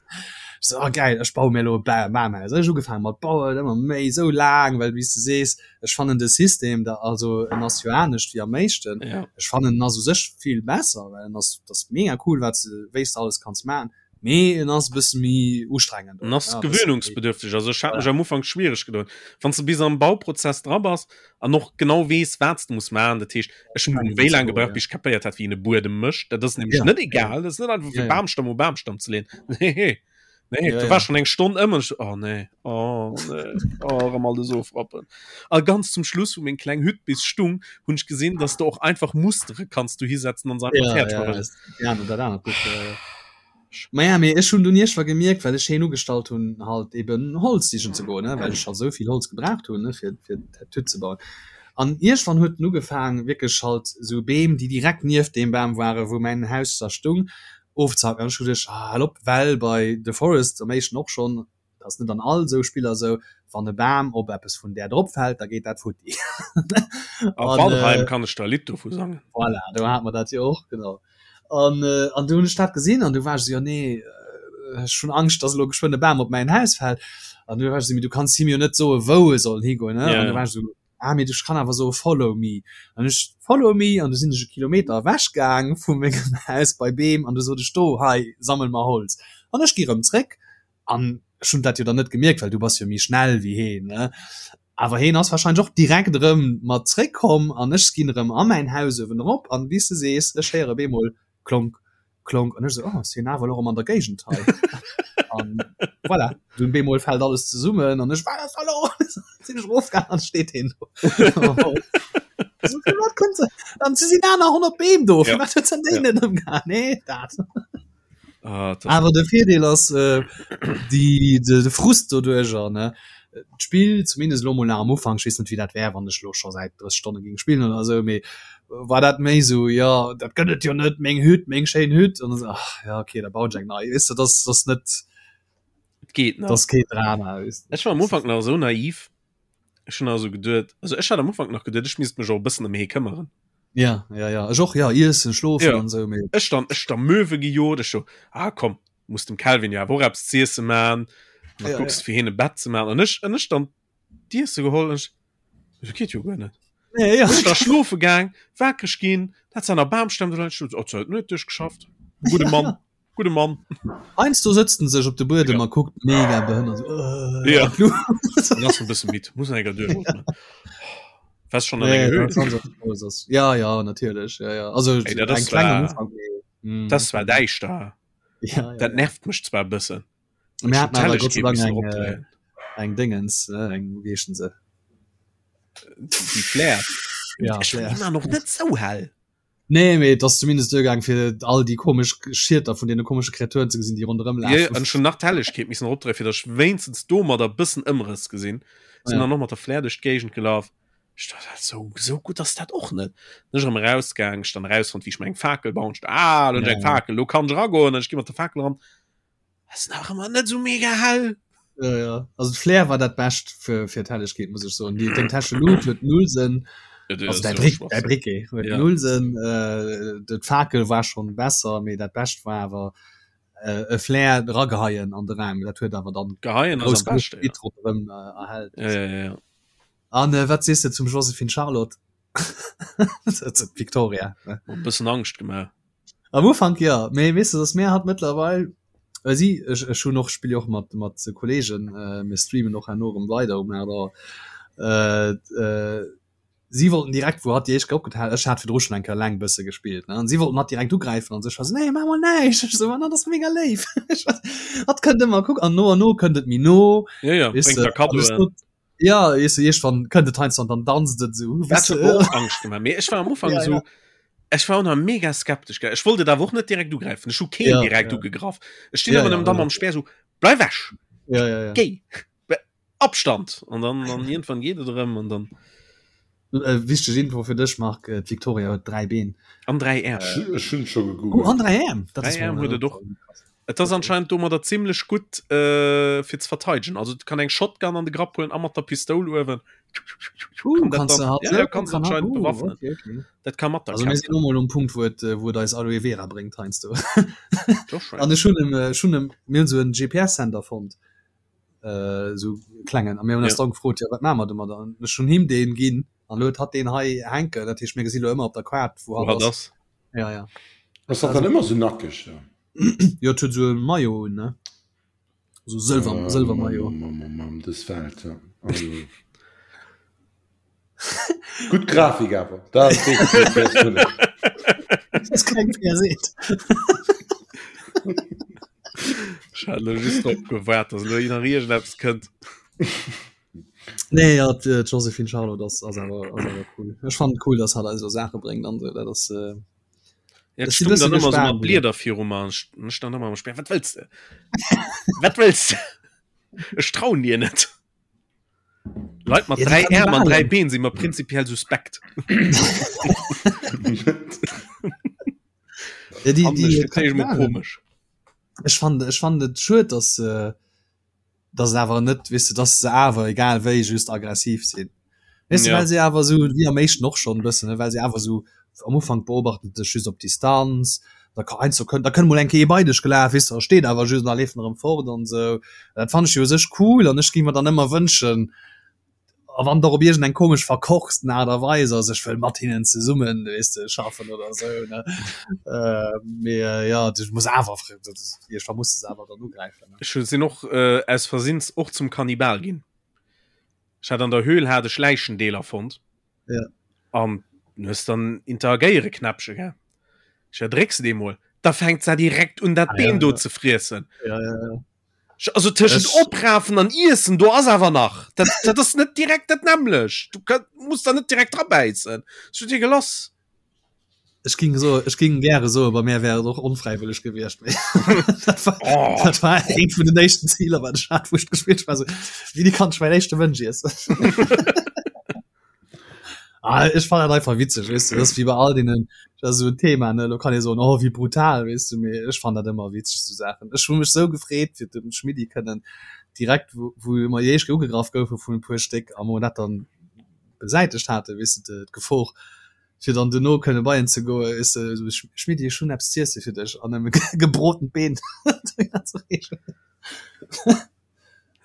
Ech so, oh gäil, ech baue mir elo e Ba Bamhaus. Ech ugefaange mat bauen, ëmmer méi, esou laang, well wéi s de sees, ech fannen de System da, also en ass jo anescht wéi am éischten, Ja. ech fannen en ass u sech vill besser, well en ass, dat ass mega cool, wat s de, wéi s de alles kanns maachen. Mee en ass e bësse méi ustrengend. En ass gewöhnungsbedürftig. Also ech hat mech am Ufank schwiereg gedoen. Wann s de bis am Bauprozess dra bass an och genau weess, wat s de muss maachen, dat heescht, ech hunn wéi laang gebraucht, bis ech kapéiert hat, wéi een e Buedem mécht. Dat ass nämlech net egal. Dat ass net einfach fir Bamstamm u Bamstamm ze leeën. Nee, nee, do war schonn eng Stonn ëm an ech, oh nee, oh nee, oh erëm alles ofrappen. A ganz zum Schluss, wou meng kleng Hütt bis stung, hunn ech gesinn, dass de och einfach Mustere kanns dohisetzen an se einfach fäerdeg maachen. Ja, dat anert Buch. Maja, mee ech hunn dunn iergendwa gemierkt, well ech heen ugestallt hunn, halt eben Holz sichen ze goen, ne, well ech halt esou vill Holz gebraucht hunn, ne, fir, fir d'Hütt ze bauen. An iergendwann huet en ugefaang wierklech halt esou Beem, déi direkt nieft deem Bam waren, wou mäin Haus da stung, ofzehacken. An ech hu geduecht, ah, hal op, well bei The Forest am éischten och schonn, dat ass net an all esou Spiller esou, wann e Bam op eppes vun där drop fält, da geet dat futti. A Valheim kann ech der e Lidd dovu sangen. Voilà, do hate mer dat jo och, genau. An, an du hunn ech dat gesinn an du war ech esou, jo nee, ech hunn Angscht, dass elo geschwënn e Bam op mäin Haus fält. An du war ech esou, mee du kanns him jo net soe wou e soll higoen, ne? An du war ech esou, ah mee ech kann awer soe follow me. An ech follow me an du sinn ech e Kilometer ewech gaang vu mengem Haus bei Beem an du sot ech, do hei sammel mer Holz. An ech gi rëm zréck an ech hunn dat jo dann net gemierkt, well du bass jo méi schnell wéi heen, ne? Awer heen ass wahrscheinlech och direkt erëm mat zréck komm an ech ginn erëm a mäin Haus uewen erop an wéi s de sees, ech héiere bemol klonk, klonk an ech esou, oh ass hien awer elo erëm an der Géigend hei an voilà, dunn bemol fält alles zesummen an ech, wat ass da lo? Sinn ech erofgaang an steet heen do. So, firwat kënnt se? An se sinn aner 100 Beem do, firwat huet se an deenen ëmgehaen? Nee, dat. Ah, Awer de Virdeel ass äh, die, de, de Frust doduercher ne d'Spill zumindest lo mol nach am Ufank, ech weess net wéi dat wär wann ech lo scho säit 30 Stonne géing spillen oder sou, mee war dat méi sou jo dat gëtt et jo net, meng Hütt, meng schéin Hütt an dann ach ja okay da bauen ech eng nei, weess de, dat ass net Et geet nach. dat ass keen Drama, weess de. Ech war am Ufank nach esou naiv, Ech hunn also geduet, also ech hat am Ufank nach geduet, ech misst mech och e bëssen ëm hee këmmeren. Ja, ja, ja, ech och, ja, iessen, schlofen ja. an sou, mee. Ech dann, ech da Möwe gejot, ech so, ah komm, muss dem Calvin jo awer och eppes z'iesse man, an da Ja, kucks ja. fir hien e Bett ze man, an ech, an ech dann d'Iesse geholl, an ech, dat geet jo guer net. Nee, ja. Ech da schlofe gaang, wakereg ginn, dat se an der Bamstamm do leien, ech so, oh, huet net duerchgeschafft, gudde Ja, Mann. ja. Gudde Mann. Heiansdo sëtzt en sech op de Buedem Ja. a kuckt mega behënnert sou, äh, Ja. an d'Luucht. Dann ass en bësse midd, muss en enker duerchootmen. Wars schon an Nee, enger dat Höhle? ass ganz groß ass. Ja, ja, natierlech. Ja, ja. Also Ey, dat eng ass kleng am zwar, Ufank, mee, mm. dat ass zwar däischter. Ja, ja, Dat ja. nervt mech zwar e bëssen. Mir Ech hunn haten awer Gott sei d'Hellegkeet Dank missen eng, äh, eropdréien. eng Dingens, äh, eng, wéi heeschen se? Déi Flare. Ja, Ech Flare. war ëmmer noch net sou hell. Nee, mee et ass zumindest duergaang fir all déi komesch Schieter vun deene komesche Kreaturen ze gesinn, déi ronderëm Ja, lafen. an ech hunn nach d'Hellegkeet missen eropdréien, fir datt ech wéinstens domadder e bëssen Ëmrëss gesinn. Sinn Ja. dann och mat der Flare duerch d'Géigend gelaf. Ech dacht, dat sou, sou gutt ass dat och net. Sinn ech erëm erausgaang, ech dann erausfonnt, wéi ech mer eng Fakel bauen. Ech dacht, ah, lo hunn ech Ja, eng ja. Fakel, lo kann ech eragoen. An ech gi mat der Fakel eran. Ass nach ëmmer net sou mega hell. Ja, ja. Also d'Flair war dat Bescht fir, fir d'Hellegkeet, muss ech soen. Déi, deng Täschelut huet null Sënn. Ja, Also däi Brick, däi Briquet huet Ja. null Sënn. Äh, d'Fakel war schon besser, mee dat Bescht war awer äh, e Flair erageheien an de Raum. Dat huet awer dann Geheien ass grouss am genuch beschte, ja. Gebitt ronderëm äh, erhellt. Ja, ja, ja, ja. An äh, wat sees de zum Joséphine Charlotte? Victoria ne? E bëssen Angscht gemaach. Am Ufank ja, mee weess de, dass mir hat mëttlerweil äh, si ech, ech hunn och spill och mat mat Kollegen äh, mir streamen och herno erëm weider um 8 Auer. Äh, äh, si wollten direkt wou hatt déi éischt Kéier opgetaucht ech hat virdru schonn eng Kéier eleng bësse gespillt ne an si wollten hatt direkt ugräifen an sech war se nee maach mol näischt ech sou ma dat ass mega léif hatt kënnt ëmmer kuck an no an no kënnt et méi no Ja, ja, weess bréngt de der an ech Kaddoen. sot Ja weess de iergendwann kënnt et heiansdo an dann danzt et esou Dat weess huet de. mer och Angscht gemaach, mee ech war am Ufank Ja, esou ja. ech war och nach mega skeptesch gell. Ech wollt et awer och net direkt ugräifen. Ech hu keen Ja, direkt ja. ugegraff. Ech stinn Ja, ëmmer ja, nëmmen da ja. mam Speer esou, Bleif ewech! Ja, ja, ja. Géi! Be Abstand! An dann an iergendwann geet et erëm an dann. Äh, wichteg Info fir dech Marc, äh, d'Victoria huet 3 Been. An 3 Äerm. Äh, ech hunn scho Oh, gegoogelt. an 3 Äerm! Dat 3 ass Äerm mol, huet et och. krass. Et ass anscheinend domadder zimmlech gutt äh, fir ze verteidegen. Also et kann eng Shotgun an de Grapp huelen a mat der Pistoul uewen. Uh, Kann dat kannst du dann, halt ja, so, ja, kannst kann halt, anscheinend uh, bewaffnen. okay, okay. Dat kann mat der Also mir kämpfen. sinn mol um Punkt, wou et, äh, wou et eis Aloe Vera bréngt heiansdo. Doch schon. An ech hunn em, äh, ech hunn em, mir hunn sou en GPS-Sender fonnt. äh, sou klengen a mir hunn eis Ja. dann gefrot ja wat maache mer domadder an ech hunn him deen ginn an lo huet hatt deen hei hänken dat heescht mir gesi lo ëmmer op der Kaart wou Wou hatt hatt ass ass. ja ja Ass dat dann ëmmer sou nackeg da? jo et huet sou e Maillot un ne sou sëlwer Ähm, sëlwer Maillot Mam, mam, mam, dës Welt, ja. Also. Gutt Grafik awer. Dat ass wierklech net PS5. Das keng PS8. Ech hat elo just drop gewaart, dass elo nach iergendeppes kënnt. Nee, ja, d'Joséphine Charlotte ass, ass awer, ass awer cool. Ech fannen et cool, dass hatt eis esou Saache bréngt an esou. Dat ass, äh, Ja, Ech ech si stung bësse dann ëmmer sou gespaant, mat Blieder viru mer an ech ech stand ëmmer am Speer. Wat wëlls de? Wat wëlls de? Ech trauen dir net. Leit mat ja, 3 Äerm an 3 Been si mer prinzipiell suspekt. ja, die, die, die, komisch. Ech fand, ech fand et schued, dass äh, dass awer net wis du, dass se awer egal wéi just aggressiv sinn. Weißt du, ja. well se awer so wie am éischten och schon bëssen, well se awer so am Ufank beobachten dech just op Distanz, da kann eins so kënnt, da kënnt mol eng Kéier bei dech gelaf, weess du, da steet awer just an da leeft en erëm fort an sou. Dat fannt ech jo u sech cool an ech géing mer dann ëmmer wënschen, a wann et och op iergend eng komesch verkorksten Aart a Weis ass, ech wëll mat hinnen zesummen, weess de, schaffen oder sou, ne. Mee jo, du muss awer, iergendwann muss de se awer dann ugräifen, ne. Ech sinn och aus Versinns och zum Kannibal ginn. Ech hat an der Höhl hat ech Läichendeeler fonnt. Ja. An du hues dann interagéiere Knäppche gell. Ech ja drécks de mol, da fänkt se direkt un dat ah, Been ja, do ja. ze friessen. Ja, ja, ja. Also tëschent Ech... oprafen an Iessen do ass awer nach. Dat, dat ass net direkt dat nämlech. Du kann, muss da net direkt drabäissen. Ech dir gelass. Ech ging so ech ging gäre so bei mir wär et och onfräiwëlleg gewiescht dat war, oh. dat war eent vun den éischten Ziler wat ech hat wou ech gespielt war so wéini kann ech mäin éischte Mënsch iessen ah, ech fand dat einfach witzeg weess du, dat ass wéi bei all deenen dat ass esou en Thema ne lo kann ee soen oh wéi brutal weess du mee ech fand dat ëmmer witzeg sou Saachen ech hu mech sou gefreet fir dem Schmidti kënnen direkt wou wou mer déi éischt ugegraff goufe vun e puer Stéck a mer dat dann besäitegt hate weess du d'Gefor fir dann duerno kënne bei en ze goen, weess de, esou, Schmidti, ech hunn eppes z'iesse fir dech an em e gebrotent Been ze reechen.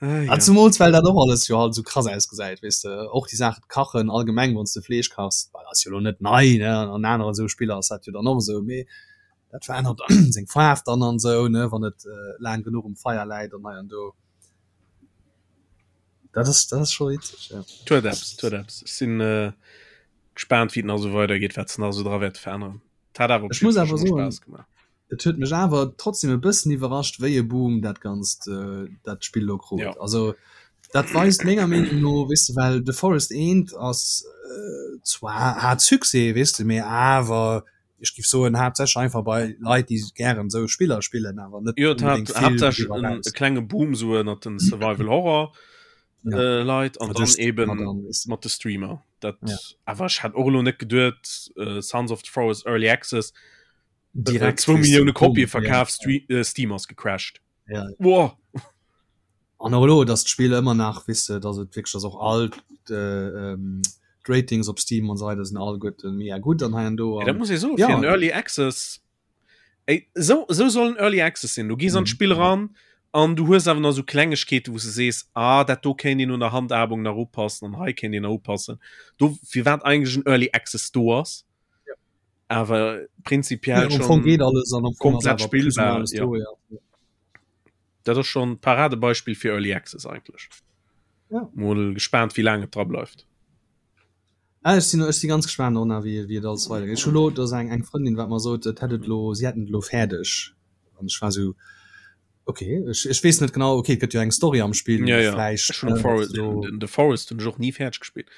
Ah, ja. A zumools well dat och alles jo halt esou krass ausgesäit, weess de, och déi Saach kachen allgemeng, wann s de Fleesch kachs, well ass jo elo net nei, ne, an aneren esou Spiller ass dat jo dann och esou, mee dat verännert seng Faarf dann an esou, ne, wann et laang genuch um Feier läit an hei an do. Dat ass, dat ass scho witzeg, ja. Et huet eppes, et huet eppes. Ech sinn gespaant wéi et nach esou weidergeet, wat se nach esou dra wäerte veränneren. Et hat awer op Ech muss jidde Fall awer scho mol soen, Spaass gemaach. et huet mech awer trotzdem e bëssen iwwerrascht, wéi e Boom dat Ganzt, dat Spill elo krut. Ja. Also dat weist menger Meenung no, weess de, well The Forest eent ass zwar hat Succès, weess de, mee awer ech géif soen haaptsächlech einfach bei Leit, déi gären esou Spiller spillen, awer net Jo, et hat unbedéngt vill haaptsächlech doriwwer en eraus. e klenge Boom esou ënnert den Survival Horror Ja. äh, Leit an Mat dann de Streamer eben dann, weess de. mat de Streamer. Dat Ja. awer ech hat och elo net geduet, äh, Sons of the Forest Early Access äh, Direkt, zwou weess de, Millioune Boom, Kopië ja. verkaf, Stre äh, Steam ass gecrashed. Ja. Boah. An och elo, dass d'Spill ëmmer nach, weess de, dass et wierklech, dass och all d'Ratings op Steam an esou weider sinn alleguerte mega gutt an hei an do. Ja, dat muss ee soen, fir en Early Access, ey, esou, esou soll en Early Access sinn. Du gees an d'Spill eran an du hues awer nach esou Klengegkeete, wou s de sees, ah, dat do kéint een un der Handhabung nach upassen an hei kéint een nach upassen. Do, firwat eigentlech en Early Access do ass. Awer prinzipiell ja, schon geht alles an komplett spielbar. Ja. Do, ja. Dat ass schon Paradebeispiel fir Early Access eigentlech. Ja. Mol gespannt wéi laang et dra bleift. Ah, ech sinn ech si ganz gespannt och nach wéi wéi et alles weidergeet. Ech hu lo do ass eng eng Frëndin wat mer sot et hätt et lo si hätten et lo fäerdeg an ech war sou okay ech ech weess net genau okay et gëtt jo eng Story am Spill Ja, ja. vläicht Ech hunn äh, Forest, so den, The Forest hunn ech och ni fäerdeg gespillt.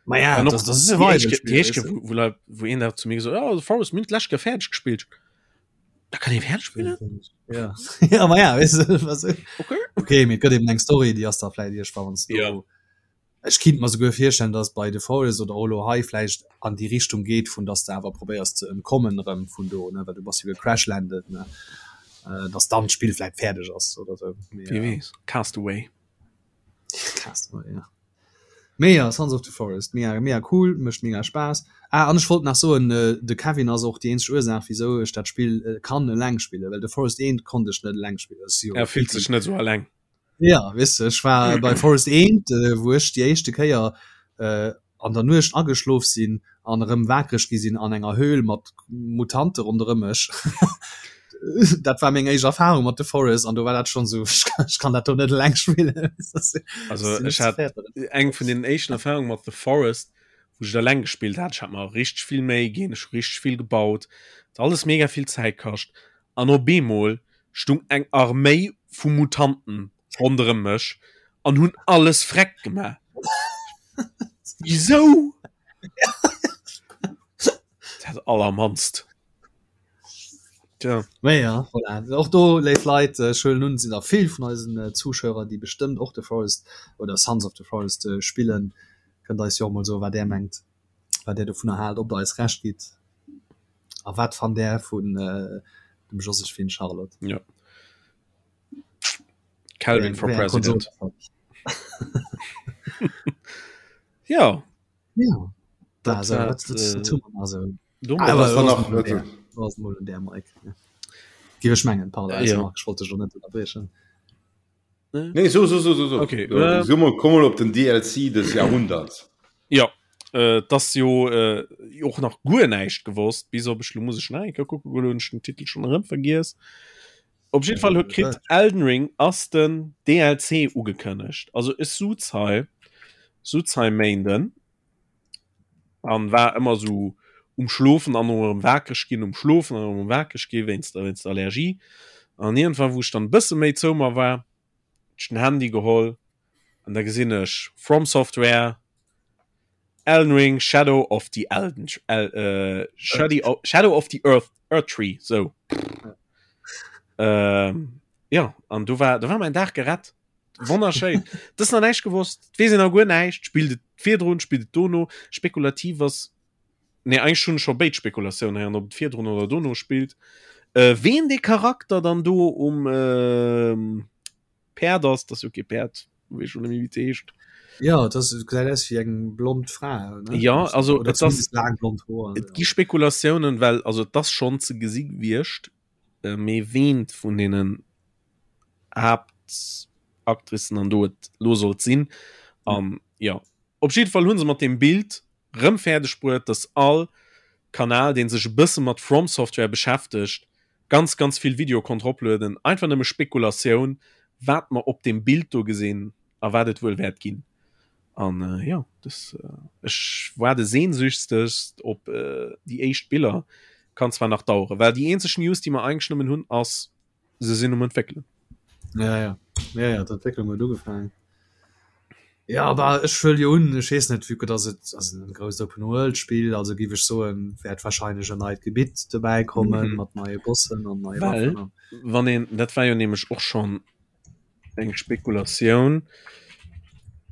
Ma ja, An och das, das ist e déi éischt Survival-Spiel, déi éischt weißt du. wou, wou, Leit- wou een da zu mir gesot oh, The Forest mir hunn d'lescht Kéier fäerdeg gespillt. Da kann ee fäerdeg spillen? Ja ja ma ja weißt du, was Okay. okay mee et gëtt eben eng Story déi ass da vläicht iergendwann wann s du Ja. Ech kinnt mer souguer virstellen, dass et bei The Forest oder och elo hei vläicht an déi Richtung geet, vun dass de awer probéiers ze entkommen erëm vun do, ne, well du bass jo gecrashlandet, ne, dass dann d'Spill vläicht fäerdeg ass oder sou. Wie weess. Castaway. Castaway, ja. Mee ja, Sons of the Forest, mega, mega cool, mécht mega Spaass. Ah, an ech wollt nach soen, de Kevin ass och déi eenzeg Ursaach, wisou ech dat Spill kann eleng spillen, well The Forest 1 konnt ech net eleng spillen. Er fillt sech net sou eleng. Ja weess de, ech war bei Forest 1, wou ech déi éischte Kéier an der Nuecht ageschlof sinn an erëm wakereg gi sinn an enger Höhl mat Mutante ronderëm mech. Dat war meng éischt Erfarung mat The Forest an do war dat schonn esou, ech kann dat do net eleng spillen. Also ech hat eng vun den éischten Erfarunge mat The Forest, wou ech et eleng gespillt hat. Ech hat mer richteg vill Méi ginn, ech hu richteg vill gebaut, et hat alles mega vill Zäit kascht an op eemol stung eng Arméi vu Mutanten ronderëm mech an hunn alles freck gemaach. Wisou? Dat allermannst. Tja. Mee ja, voilà. Och do, léif Leit, ech huelen un, et sinn der vill vun eisen Zuschauer, déi bestëmmt och The Forest oder Sons of the Forest spillen. Kënnt eis jo och mol soen, wat Är mengt, wat Är dovunner haalt, ob Der eis Recht gitt a wat fannt Är vun dem Josephine Charlotte. Ja. Calvin for President. Ja. Ja. Dat, dat, dat, dat, Gi ech mengen wollte schon net unterbrechen. Nee, so, so, so, so, so. Okay, äh, so mal, komm mal op den DLC des Jahrhunderts. Ja äh, das jo äh, och nach guer näischt gewosst bis op ech lo muss ech nach eng Kéier kucke goen, hunn ech den Titel schon erëm vergiess. Op jeden Fall huet kritt Elden Ring ass den DLC ugekënnegt. Also ech suz hei suz hei Méinden an war ëmmer sou um schlofen an erëm wakereg ginn, um schlofen an erëm wakereg gi wéinst der wéinst der Allergie. An iergendwann wou ech dann e bësse méi zou mer war, hunn ech den Handy geholl an da gesinn ech From Software, Elden Ring, Shadow of the Elden El äh, Shadow, Shadow of the Earth Erdtree, sou. Ähm, ja an du war do war mäin Dag gerett. Wonnerschéin. Dat ass nach näischt gewosst. Et weess een nach guer näischt. Spillt et virdrun, spillt et dono? Spekulativ ass, nee, eigentlech hunn ech scho béid Spekulatiounen héieren, ob et virdrun oder dono spillt. Äh, ween dee Charakter dann do um ähm, Päerd ass, dat ass jo kee Päerd, weess schon net méi wéi et heescht. Ja, dat ass, gesäit aus wéi eng blond Fra, ne? Ja, also Oder et ass, zumindest laang blond Hoer. et gi Spekulatiounen, well also et ass schonn ze gesi gewiescht, äh, mee ween vun deenen Haaptactricen an do et lo sollt sinn. An ja, op jidde Fall hu se mat deem Bild rëm fäerdeg bruet, dass all Kanal, dee sech e bësse mat From Software beschäftegt, ganz, ganz vill Video konnt roplueden. Einfach nëmme Spekulatioun, wat mer op deem Bild do gesinn a wat et wuel wäert ginn. An äh, ja, das, äh, ech waarde sehnsüchtegst op äh, déi éischt Biller. Kann zwar nach dauere, well déi eenzeg News, déi mer eigentlech nëmmen hunn, ass, se sinn um entwéckelen. Ja, ja. Ja, ja, d'Entwécklung huet ugefaangen. Ja, aber ech huel jo un, ech weess net, vue que dass et ass en grousst Open-World-Spill, also géif ech soen, wäert wahrscheinlech en neit Gebitt dobäi kommen, mat neie Bossen an neie Well, Waffen. wann een, dat war jo nämlech och schonn eng Spekulatioun,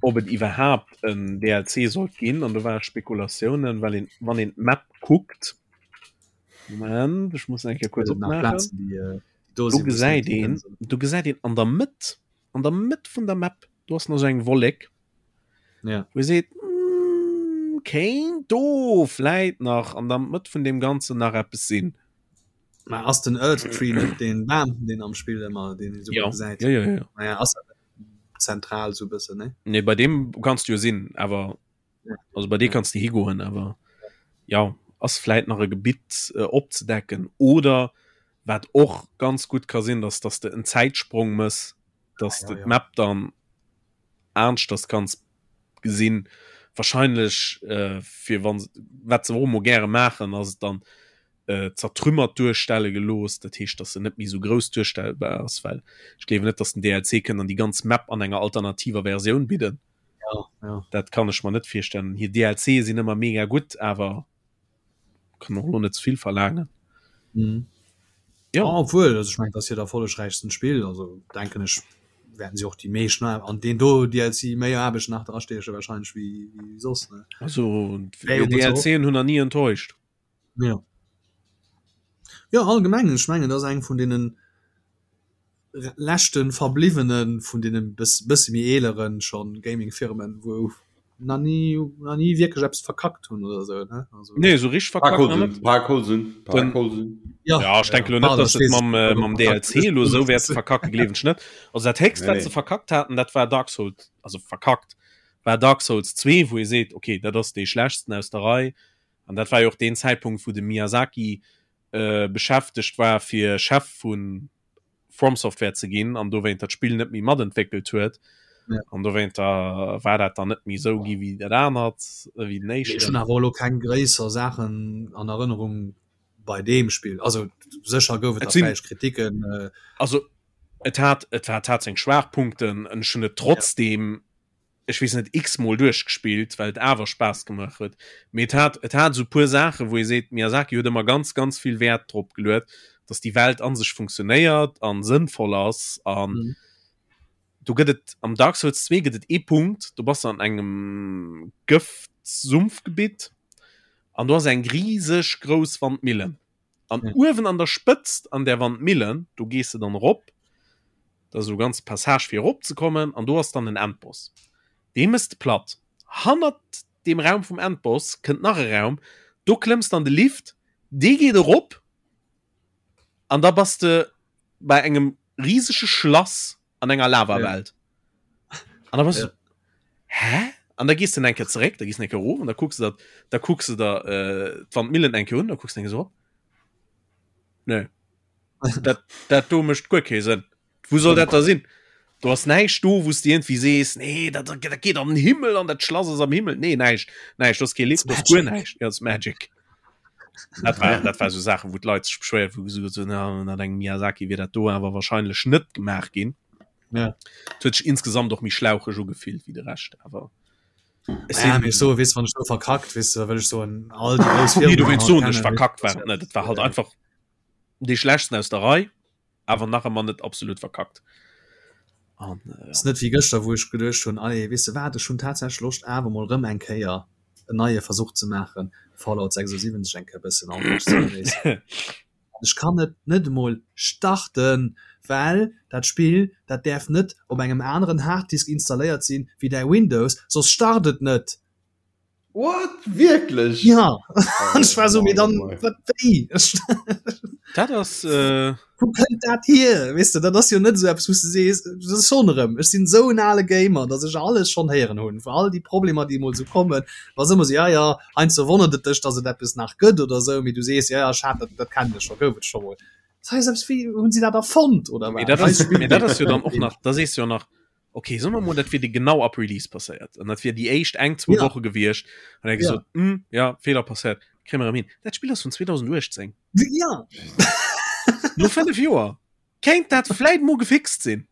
ob et iwwerhaapt en DLC sollt ginn, an do ware Spekulatiounen, well een, wann een d'Map kuckt, Moment, ech muss eng Kéier kuerz opmaachen. Äh, do gesäit een, do gesäit een an der Mëtt, an der Mëtt vun der Map, do ass nach sou eng Wollek. Ja. Wou ee seet, mm, kéint do vläit nach an der Mëtt vun deem Ganzen nach eppes sinn. Mä ass den Erdtree net deen Bam, deen am Spill ëmmer, deen ee sou Ja. gutt gesäit? Ja, ja, ja. Naja, ass dat net zentral sou e bëssen, ne? Nee, bei deem kanns du jo sinn, awer Also bei dir kannst du higoen, awer ja ass vläit nach e Gebitt äh, opzedecken oder wat och ganz gut ka sinn, dass dass de en Zäitsprong mëss, dass Ja, de ja. d'Map dann aneschters kanns gesinn. Wahrscheinlech äh, fir wann wat se och emol gäre maachen, ass et dann äh, zertrümmert duerstelle gelooss, dat heescht, dass se net méi sou grouss duerstellbar ass, well ech gleewen net, dass den DLC kënnt an déi ganz Map an enger alternativer Versioun bidden. Ja, ja. Dat kann ech mer net virstellen. Hir DLC sinn ëmmer mega gutt, awer kann och lo net ze vill verlaangen. Mhm. Ja. Ah, obwuel, also ech mengen, dat ass hiert erfollegräichsten Spill, also denken ech, wäerten si och déi meescht na an deen do DLC méi Aarbecht nach drastieche wahrscheinlech wéi, wéi soss, ne? Also Wär jo mol ze DLCen hunn der ni enttäuscht. Ja. Ja, allgemeng, ech mengen, dat ass eng vun deenen leschte verbliwwene vun deene bësse méi eelere schonn Gaming-Firmen, wou nach ni nach ni wierklech eppes verkackt hunn oder esou, ne? Also, Nee, esou richteg verkackt nach net. Park Holsen. Ja, ja ech denke lo net, dass et mam, äh, mam DLC elo esou wäerte verkacke, gleewen ech net. Also dat héchst, wat se verkackt haten, dat war Dark Souls, also verkackt, war Dark Souls 2, wou ee seet, okay, dat ass dee schlechtsten aus der Rei. An dat war jo och deen Zäitpunkt, wou de Miyazaki äh, beschäftegt war, fir Chef vun From Software ze ginn an dowéinter d'Spill net méi matentwéckelt huet. Ja. An dowéinter war dat dann net méi esou gi wéi dat anert, wéi den Ech éischten. hunn awer elo keng gréisser Saachen an Erënnerung bei deem Spill. Also sécher gouf et Et da sinn- vläicht Kritiken. Äh, Also et hat et hat hat seng Schwaachpunkten, ech hunn et trotzdem ech weess net x-mol duerchgespillt, well et awer Spaass gemaach huet. Mee et hat et hat esou puer Saachen, wou ee seet, Miyazaki huet ëmmer ganz ganz vill Wäert drop geluet. dass déi Welt an sech funktionéiert an sënnvoll ass an mhm. do gëtt et am Dark Souls 2 gëtt et ee Punkt, do bass de an engem Gëftsumpfgebitt an do ass eng riseg grouss Wandmillen. An ja. uewen an der Spëtzt an der Wandmillen, do gees de dann erop, da ass esou e ganze Passage fir erop ze kommen an do ass dann en Endboss. Dee mëss de platt. Hannert deem Raum vum Endboss kënnt nach e Raum, do klëmms de an de Lift, dee geet erop an da bass de bei engem riesege Schlass an enger Lavawelt. Ja. An da bass ja. du, hä? An da gehst du enke zeréck, da gehst enke erof an da kucks du dat, da kucks du der äh, d'Wandmillen enke un, da kucks du enke so. Nee. Dat, dat do mécht guer kee Sënn. Wou soll dat da sinn? Du ass näischt do, wou s du irgendwie sees, nee, dat, dat geet an den Himmel an dat Schlass ass am Himmel. Nee, näischt. Näischt, du ass kee Lift, du ass guer näischt. Ja, das Magic. Dat war, dat war so Sachen, wou d'Leit sech beschwéiert, wou gesot hunn, na, ënner engem Miyazaki wier dat do awer wahrscheinlech net gemaach ginn. Ja. Et huet sech insgesamt och méi schlaucheg ugefillt wéi de Rescht, awer ech Ja, sinn- mee so, weess, wann ech do verkackt, weess du, da wëll ech soen, all déi grouss Nee, du Firmen wéinst soen, ech verkackt war et net. Et war halt einfach dee schlechtsten aus der Rei, awer nach ëmmer net absolut verkackt. An, äh, ja. Ass net wéi gëschter, wou ech geduecht hunn, allez, weess de wat, ech hunn tatsächlech Loscht awer mol rëm eng Kéier en neie Versuch ze maachen, Fallout 76 eng Kéier bëssen anescht ze genéissen. An ech kann et net emol starten, well dat Spill, dat däerf net op engem aneren Harddisk installéiert sinn wéi däi Windows, soss start et net. What? Wierklech? Ja an ech war so mee dann wat wéi? Dat ass äh... Wou kënnt dat hier? Weess de, dat ass jo net esou eppes wou s de sees, dat ass schonn erëm, ech sinn esou en ale Gamer, datt ech alles schonn héieren hunn, vu all déi Problemer déi emol esou kommen, ass ëmmer esou, ja ja, heiansdo wonnert et dech, datt et eppes nach gëtt oder esou, mee du sees, ja ja, ech hat dat, dat kennen ech scho, gouf et scho mol. Dat ass eppes wéi, hunn si dat erfonnt oder wat? Mee dat ass, mee dat ass jo dann och nach, da sees du jo nach, okay soen mer mol dat wier dir genau ab Release passéiert an dat wier déi éischt eng zwou ja. Woche gewiescht an er gesot ja. Hm, ja Fehler passéiert kréie mer erëm hin. Dat Spill ass vun 2018. Ja. No 5 Joer kéint dat vläit mo gefixt sinn.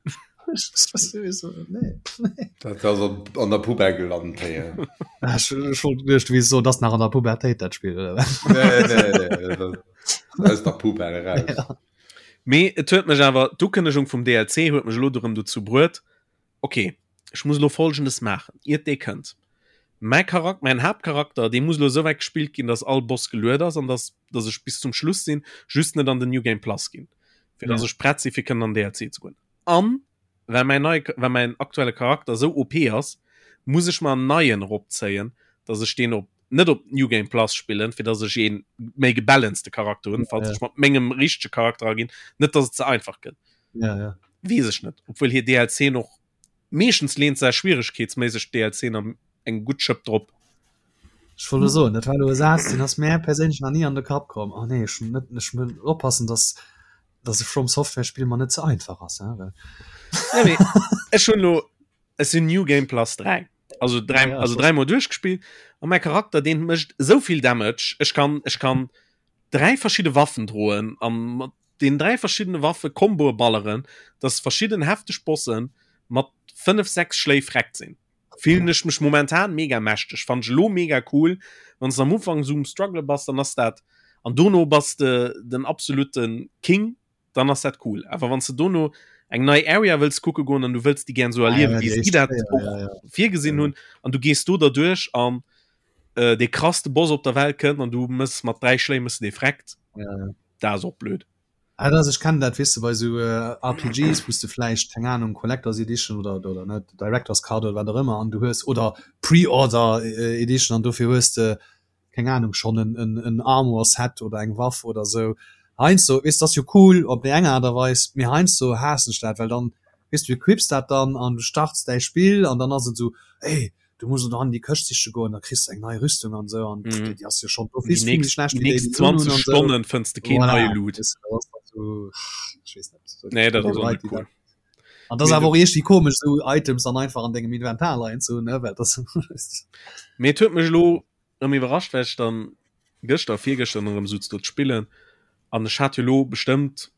Dat ass an der Poubelle gelant. Ech wollt geduecht, wéi so, dat nach an der Pubertéit dat Spill oder wat? Nee, nee, nee, dat aus der Poubelle raus. Ja. Mee et huet mech awer, d'Ukënnegung vum DLC huet mech elo erëm dozou bruet, ok, ech muss elo Folgendes maachen, iert dee kënnt. Mäi Charak-, mäin Haaptcharakter, dee muss elo esou wäit gespillt ginn, dass all Boss geluet ass an dass, dass ech bis zum Schluss sinn, just net an den New Game Plus ginn, fir dass ech prett sinn, fir kënnen an den DLC ze goen. An well mäin neie, well mäin aktuelle Charakter esou OP ass, muss ech mer en neien eropzéien, dass ech deen op net op New Game Plus spillen, fir dass ech een méi gebalancete Charakter hunn, falls ech mat mengem richtege Charakter aginn, net dass et ze einfach gëtt. Ja, ja. Weess ech net, obwuel hir DLCen och meeschtens leent se schwieregkeetsméisseg d'DLCen am eng gutt Schëpp drop. Ech wollt elo soen, dat war elo e Saz, deen ass mär perséinlech nach ni an de Kapp komm. Oh nee, ech net, ech muss oppassen, dass dass e From Software Spill mer net ze einfach ass, hein, well. Ja, mee ech hunn elo, ech sinn New Game Plus 3. Also dräi, ja, also dräimol duerchgespillt an mäi Charakter deen mécht esou vill Damage. Ech kann, ech kann dräi verschidde Waffen droen an mat den dräi verschiddene Waffe Komboe balleren, dass verschidden hefteg Bossen mat 5, 6 Schléi vreckt sinn. Fillen ech mech momentan mega mächteg. Fann ech elo mega cool. Wann s de am Ufank esou um Struggle bass, dann ass dat an dono bass de den absoluten King dann ass dat cool. Awer wann s de dono eng nei Area wëlls kucke goen an du wëlls déi gären esou erliewen, wéi si dat och virgesinn hunn, an du gees do derduerch an äh, dee krasste Boss op der Welt kënnt an du mëss mat 3 Schléi mëss de dee vreckt, dat ass och blöd. Ah, dat ass, ech kennen dat, weess de, bei esou RPGs, wou s de vläicht, keng Ahnung, Collector's Edition oder, oder net, Director's Cut oder wat och ëmmer, an du hues, oder Pre-Order Edition, an dofir hues de keng Ahnung, schonn en, en, en Armor Set oder eng Waff oder esou. Heiansdo, weess, dat ass jo cool op déi eng Aart a Weis, mee heiansdo haassen ech dat, well dann, weess, du equips dat dann an du starts däi Spill an dann ass et esou, ey, du muss elo an déi Këscht siche goen, da kriss de eng nei Rüstung an esou an mm. déi ass jo schonn d'office vill méi schlecht wéi déi, déi du hunn an esou. Stonnen fënns de keen voilà. neie Loot. Weess, dat ass dann esou, ech weess net, esou nee, dat ass och net cool. An das awer och iergendwéi komesch esou Items dann einfach an dengem Inventar leien ze hunn, ne, well das Mee et huet mech elo erëm iwwerrascht, well ech dann gëschter, virgëschter erëm sutz do ze spillen an ech hat jo elo bestëmmt,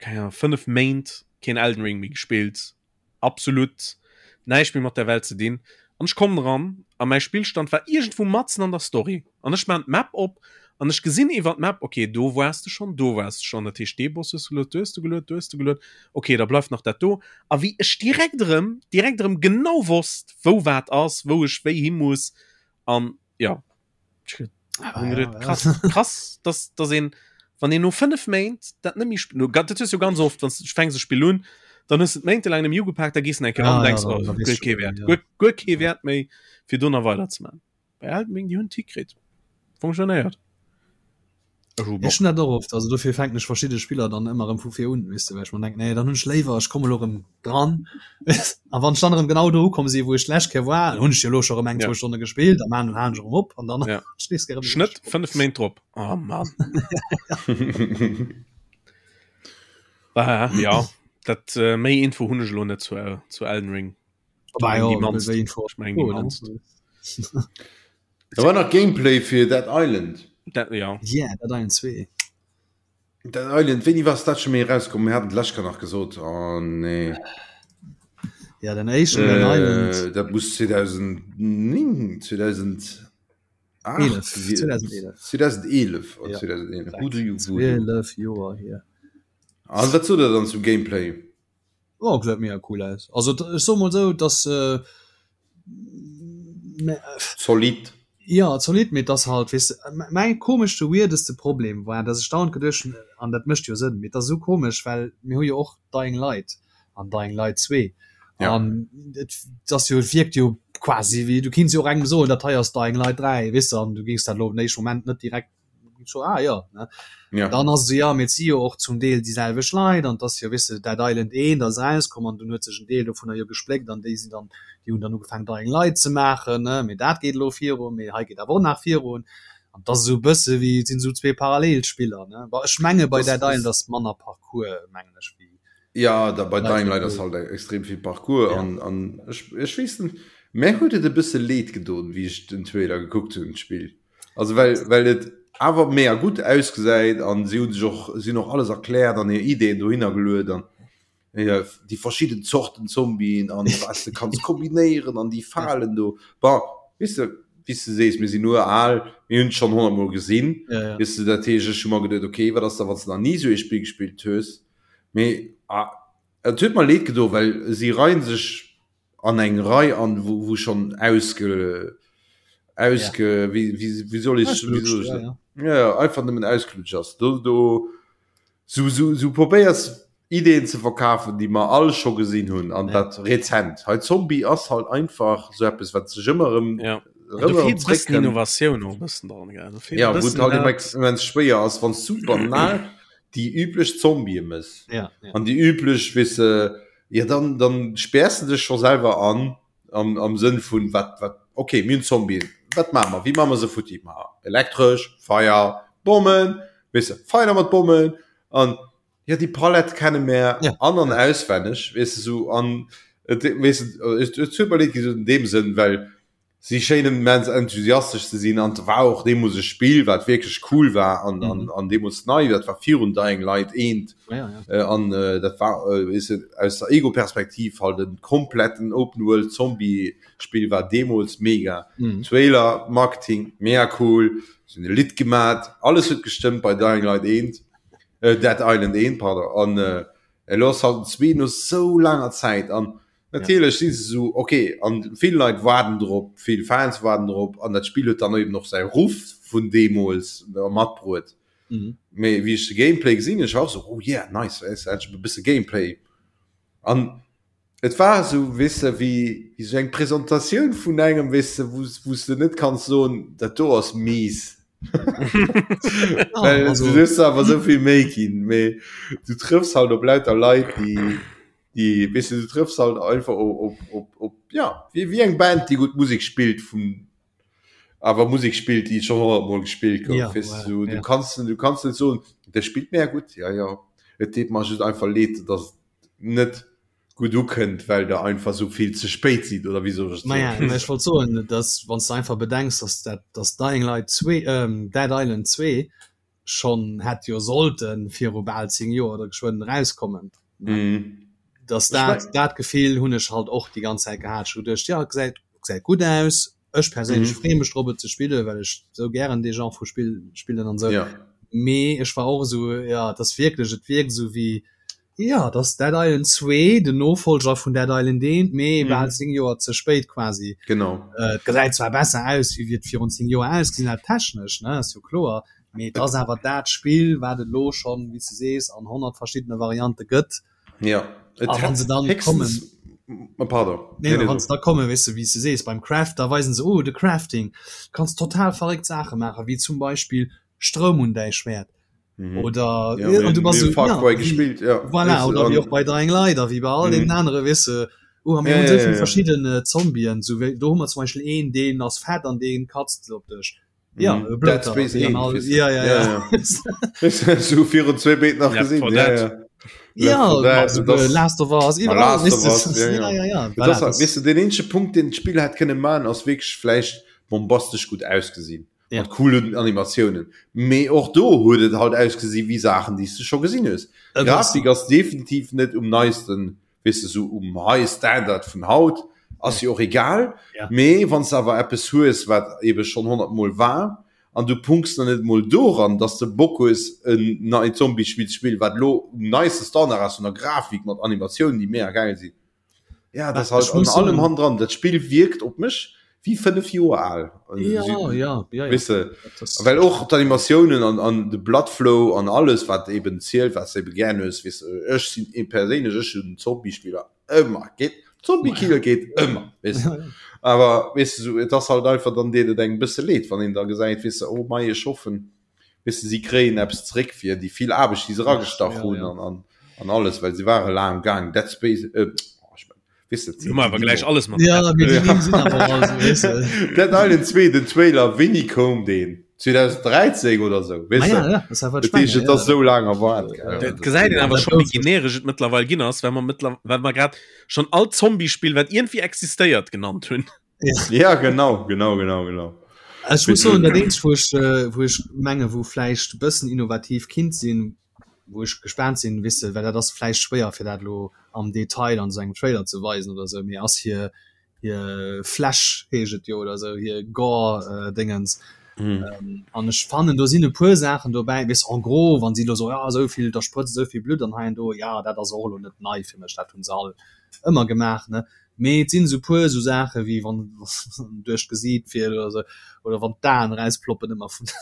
keng Ahnung, 5 Méint keen Elden Ring méi gespillt, absolut näischt méi mat der Welt ze dinn an ech kommen eran a mäi Spillstand war iergendwou matzen an der Story an ech maan d'Map op. An ech gesinn iwwer d'Map, okay, do waars de schonn, do waars de schonn, dat heescht dee Boss hues de geluet, do hues de geluet, do hues de geluet, okay, da bleift nach dat do. A wéi ech direkt erëm, direkt erëm genau wosst, wou wat ass, wou ech wéi hi muss an ja, ech hunn geduet, krass, krass, dass, dass een, wann een no 5 Méint dat net méi sp-, no, dat hues du ganz oft, wann s du fänks e Spill un, dann hues de et méintelaang net méi ugepaakt, da gees de eng Kéier an an denks, oh, guer kee Wäert, guer, guer kee Wäert méi, fir do nach weiderzemaachen. Bei Elden Ring, déi hunn et hikritt. Funktionéiert. Ech hu Bock. Ech hunn dat och oft, also dofir fänken ech verschidde Spiller dann ëmmer erëm vu vir un, weess de, well ech mer denken, nee, dann hunn ech léiwer, ech komme lo erëm dran. A wann ech dann erëm genau do ukomm sinn, wou ech d'lescht Kéier war, dann hunn ech jo elo scho erëm eng, zwou Stonne gespillt, da maan, halen ech erëm op an dann ja. nees erëm. Schnëtt, 5 Méint drop. Oh Mann. Ah, ja, dat äh, méi Info hunn ech elo net zu, äh, zu Elden Ring. Da war nach Gameplay fir Dead Island. Dat, ja. Yeah, Dead Island 2. Dead Island, wéini war dat scho méi erauskomm? Mir haten d'lescht Kéier nach gesot. Oh nee. Ja, den éischten Dead äh, Island. Dat muss 2009, 2008, 2011. 2011. Ja. 2011. 12 Joer hier. An wat sot der dann zum Gameplay? Oh, gesäit mega cool aus. Also ech soe mol sou, dass äh, zolidd. Ja, zolidd, mee dass halt, weess de, mäi komeschte, weirdeste Problem war, dass ech dauernd geduecht hunn, an dat mécht jo Sënn, mee et ass esou komesch, well mir hu jo och Dying Light an Dying Light 2 Ja. an et ass jo, et wierkt jo quasi wéi, du kinns jo och engem soen, dat hei ass Dying Light 3, weess de, an du géings dat elo op den éischte Moment net direkt so ah ja ne ja. dann ass se ja mit si jo och zum Deel déi selwecht Leit an dass jo wisse Dead Island 1 ass rauskomm an dunn huet sech en Deel dovunner jo gespléckt an déi sinn dann déi hunn dann ugefaangen Dying Light ze maachen ne mee dat geet elo virun mee hei geet awer och nach virun an dat ass esou e bësse wéi et sinn esou zwee Parallelspiller ne bon ech menge bei Das Dead Island ass manner Parcours mengen ech wéi Ja da bei Dying Light ass halt extrem vill Parcours ja. an an ech ech weess net mär huet et e bësse leed gedoen wéi ech den Trailer gekuckt hunn d'Spill. Also well well et awer mega gutt ausgesäit an si hunn sech och si hunn och alles erkläert an hir Ideeën dohinner geluet an ja, déi verschidden Zorten Zombien an was de kanns kombinéieren an déi Falen do. Bon, weess de, wéi s de sees, mir sinn uraal, mir hunn et schonn 100 Mol gesinn, Ja, ja. weess de, dat heescht, ech hu mer geduet, okay, wat ass da wann s de nach ni esou ee Spill gespillt hues, mee ah, et huet mer leed gedo, well si reien sech an eng Rei an wou wou schonn ausge ausge ja. wéi wéi wéi soll ech wéi soll ech ja, ja. ja, ja, einfach nëmmen ausgelutscht ass do do sou sou sou probéiers Ideen ze verkafen déi mer all scho gesinn hunn an ja. dat rezent hei Zombie ass halt einfach sou eppes wat sech ëmmer erëm ja. erëm erëm zréckkënnt. Innovatioun och e bëssen dran gell Do feelt e Ja, wou et bëssen halt dat. immens schwéier ass wann s du banal déi üblech Zombië mëss ja, ja. an déi üblech weess de Ja dann dann späers de dech scho selwer an am am Sënn vun wat wat okay mir hunn Zombien, wat maache mer, wéi maache mer se futti? Ma elektresch, Feier, Bommen, weess de, Feier mat Bommen an ja déi Palett kenne mär Ja. an an auswenneg, weess de sou an et weess de et huet mer leed gi sou an deem Sënn, well Si schéinen immens enthusiastesch ze sinn an et war och deemools e Spill wat wierklech cool war an an an deemools nei, dat war virun Dying Light eent Ja, ja. an dat war weess de aus der Ego-Perspektiv halt e kompletten Open World Zombie Spill war deemools mega. Trailer, Marketing mega cool, si hunn e Lidd gemat, alles huet gestëmmt bei Dying Light eent, Dead Island eent pardon an elo ass halt den zwee no sou laanger Zäit an Natierlech si se esou, ok, an vill Leit waarden drop, vill Fans waarden drop, an dat Spill huet dann eben och säi Ruff vun deemools matbruet. Mee wéi ech de Gameplay gesinn hunn, ech war och esou, oh yeah, nice, weess de, endlech e bësse Gameplay. An et war esou, weess de, wéi esou eng Presentatioun vun engem, weess de, wou s de net kanns soen, dat do ass mies. Well du hues der awer esou vill Méi ginn, mee du trëffs halt op lauter Leit, déi déi weess de, du trëffs halt einfach op op op op ja wéi wéi eng Band déi gutt Musek spillt vun awer Musek spillt déi schonn 100 mol gespillt gouf Ja, weess voilà, du du ja. kanns du kanns net soen der spillt mega gutt ja ja et deet mer just einfach leed dass et net gutt ukënnt well der einfach sou vill ze spéit sidd oder wéi soll ech et Maja, soen mä ech wollt soen, dass wann s de einfach bedenks, dass dat dass Dying Light 2 ähm Dead Island 2 schonn hätt jo sollte viru bal 10 Joer oder geschwënn erauskommen, dass dat dat Gefill hunn ech halt och déi ganz Zäit gehat. Ech hu geduecht, jo gesäit gesäit gutt aus. Ech perséinlech mhm. freeë mech drop et ze spillen, well ech sou gären dee Genre vu Spill spillen an sou. Ja. Mee ech war och esou, ja, et ass wierklech, et wierkt esou wéi, ja, et ass Dead Island 2, den Nofolger vun Dead Island 1, mee mhm. bal 10 Joer ze spéit quasi. Genau. Äh, et gesäit zwar besser aus, wéi et virun 10 Joer ausgesinn hat, technesch, ne, ass jo kloer, mee et ass awer dat Spill, wat et elo schonn, wéi s de sees, an 100 verschiddene Variante gëtt. Ja et ah, wann se dann kommen oh, pardon. Nee, nee, wann se da kommen weißt du, wie se sees beim Craft da weisen se oh de Crafting kannst total verréckt Sache machen wie zum Beispiel Stroum un däi Schwert mhm. oder ja, ja, du warst so, ja, gespielt ja. voilà, oder wie och bei Dying Light wie bei all mhm. den anderen wisse oh, haben ja, ja, ja, ja. verschiedene Zombien so do hu mer zum Beispiel een den ass fett an den katzt op dech Ja, mhm. Dead Space ja, ja, ja. ja. so virun zwee Méint nach gesinn ja, ja. Ja, das, Last of Us, Last of Us, ja, ja. Ja, ja, ja. Das, weißt du, den eenzege Punkt den d'Spill hat kënne man ass wierklech vläicht bombastesch gut ausgesinn ja. mat coolen Animatiounen mee och do huet et halt ausgesi wéi Saachen déi s du scho gesinn hues. Grafik ass definitiv net um neisten weess de, sou um high standard vun haut, ass jo och egal, mee wann s de awer eppes hues, wat ebe schonn 100 mol war, an du punks dann net emol doran, dass de Bock hues en neit Zombie-Spill ze spillen, wat elo um neiste Standard ass vun der Grafik, mat Animatiounen, déi mega gäil sinn, ja, dat ass halt an allem hannendran, dat Spill wierkt op mech wéi 5 Joer al. Ja, ja, ja, ja. Weess de, well och d'Animatiounen an, an de Bloodflow an alles, wat eben zielt, wat s de ebe gär hues, weess de, ech sinn ee perséinlech, ech hunn Zombie-Spiller ëmmer geet, Zombie-Killer geet ëmmer, weess de. Awer weess de, sou, et ass halt einfach, dann deet et engem e bësse leed, wann een da gesäit, weess de, oh mei, ech hoffen, weess de, si kréien eppes zeréck fir déi vill Aarbecht, déi se eragestach hunn an, an, an alles, well se ware laang um Gaang, Dead Space, äh, oh, ech Weißt du, Hu mer awer gläich alles mat. Ja, mee déi Nimm sinn awer all esou, weess de. Dead Island 2, den Trailer, wéini koum deen? 2013 oder sou, weess Ah de? ja, ja, das war Dat heescht, et ass sou laang erwaart, gell? Dat gesäit een awer scho, wéi generesch et mëttlerweil ginn ass, well mer mëttler well mer grad schonn all Zombie-Spill, wat iergendwéi existéiert, genannt hunn. Ja, genau, genau, genau, genau. Ech muss soen, dat eenzegt, wou ech, wou ech menge wou vläicht e bëssen innovativ kinnt sinn, wou ech gespaant sinn, weess de, well dat ass vläicht schwéier fir dat elo am Detail an esou engem Trailer ze weisen oder esou, mee ass hir hir Fläsch heescht et jo oder esou, hir Gore Déngens. An ech fannen do sinn e puer Saachen dobäi, weess en gros, wann si elo soen, jo esou vill, da sprëtzt esou vill Blutt an hei an do, jo dat ass och elo net nei fir mech, dat hunn se all ëmmer gemaach, ne. Mee et sinn esou puer esou Saache wéi wann duerch d'Gesiit fiert oder esou oder wann d'Aen erausploppen ëmmer vun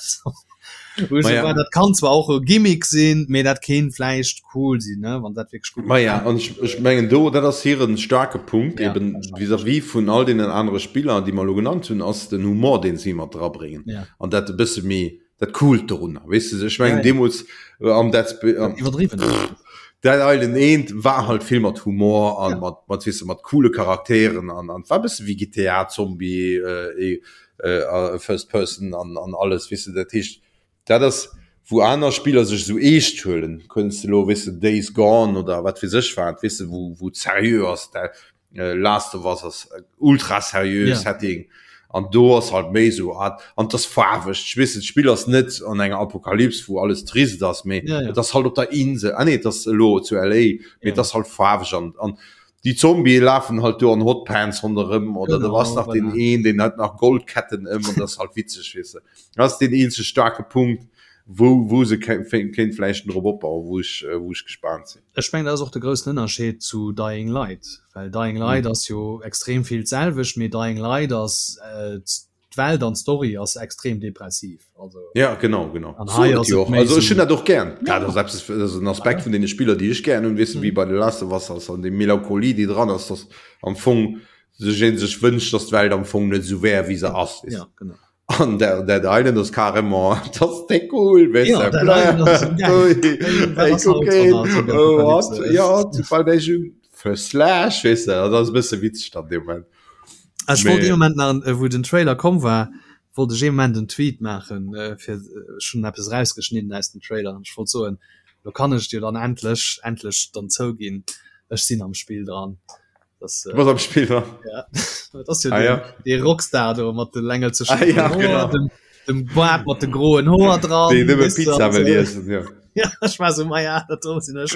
wou ech esou war, dat kann zwar och e Gimmick sinn, mee dat kéint vläicht cool sinn, ne, wann dat wierklech gutt Maja, an ech, ech mengen do, dat ass hiren staarke Punkt ja, eben vis-à-vis vun all deenen anere Spiller, déi mer elo genannt hunn, ass den Humor, deen si mat drabréngen ja. an dat e bësse méi dat Coolt dorunner, weess de, ech mengen ja, ja. deemools äh, am Dead Sp ähm, iwwerdriwwen Dead Island 1 war halt vill mat Humor an ja. mat mat weess de, mat coole Charakteren an an war bësse wéi GTA Zombie äh, äh, äh, First Person an an alles weess de, dat heescht dat ass wou aner Spiller sech sou eescht huelen, kënns de lo weess de Days Gone oder wat weess ech wat weess de wou wou et seriö ass dat äh, Last of Us ass ultra seriö yeah. Setting an do ass halt méi so ah, an das faarweg ich weess d'Spill ass net an enger Apokalyps wou alles trist ass méi yeah, yeah. das halt op der Insel ah, nee, das lo zu LA mee yeah. das halt faarweg an an die Zombie lafen halt do an Hotpants ronderëm oder genau, du was nach den een den hat nach Goldketten ëm und das halt witzeg wisse das den eenzege starke Punkt wou wou se kéint vläicht drop opbauen wou ech äh, wou ech gespannt sinn. Ech mengen dat ass och de groussen Ënnerscheed zu Dying Light, well Dying Light ass jo extrem vill d'selwecht, mee Dying Light ass d'Welt an d'Story ass extrem depressiv. Also ja genau genau an hei ass et méi also ech hunn dat och gär dat ass eppes dat ass en Aspekt vun deene Spiller déi ech gär hunn weess de wéi bei The Last of Us ass an déi Melancholie déi dran ass dass am Fong sech ee sech wënscht dass d'Welt am Fong net esou wär wéi se ass weess ja genau. An der Dead Island ass carrément das déck cool weißt ja, du, Dead Island ass so geil. Ey, wat Ey, ass haut guck een, an der oh, what? Apokalypse? Ja, bei der schon für Slash weißt du, das ass e bësse witzeg dann dee Moment. Ech wollt Mee- ee Moment nach, äh, wou den Trailer komm war, wollt ech ee Moment en Tweet maachen, äh, fir äh, ech hunn eppes rausgeschnidden aus dem Trailer an ech wollt soen, lo kann ech dir dann endlech, endlech dann zouginn, ech sinn am Spill dran. Das, Du bass am Spill dran. Ja, dat ass jo Ah, den, ja. dee Rockstar do mat de längelzeschen Ah, ja, Hoer, genau. dem, dem Bart mat de groen Hoer dran. Déi nëmme weess du, Pizza an wëll so. iessen, ja. Ja, ech war so, ma ja, dat do sinn ech.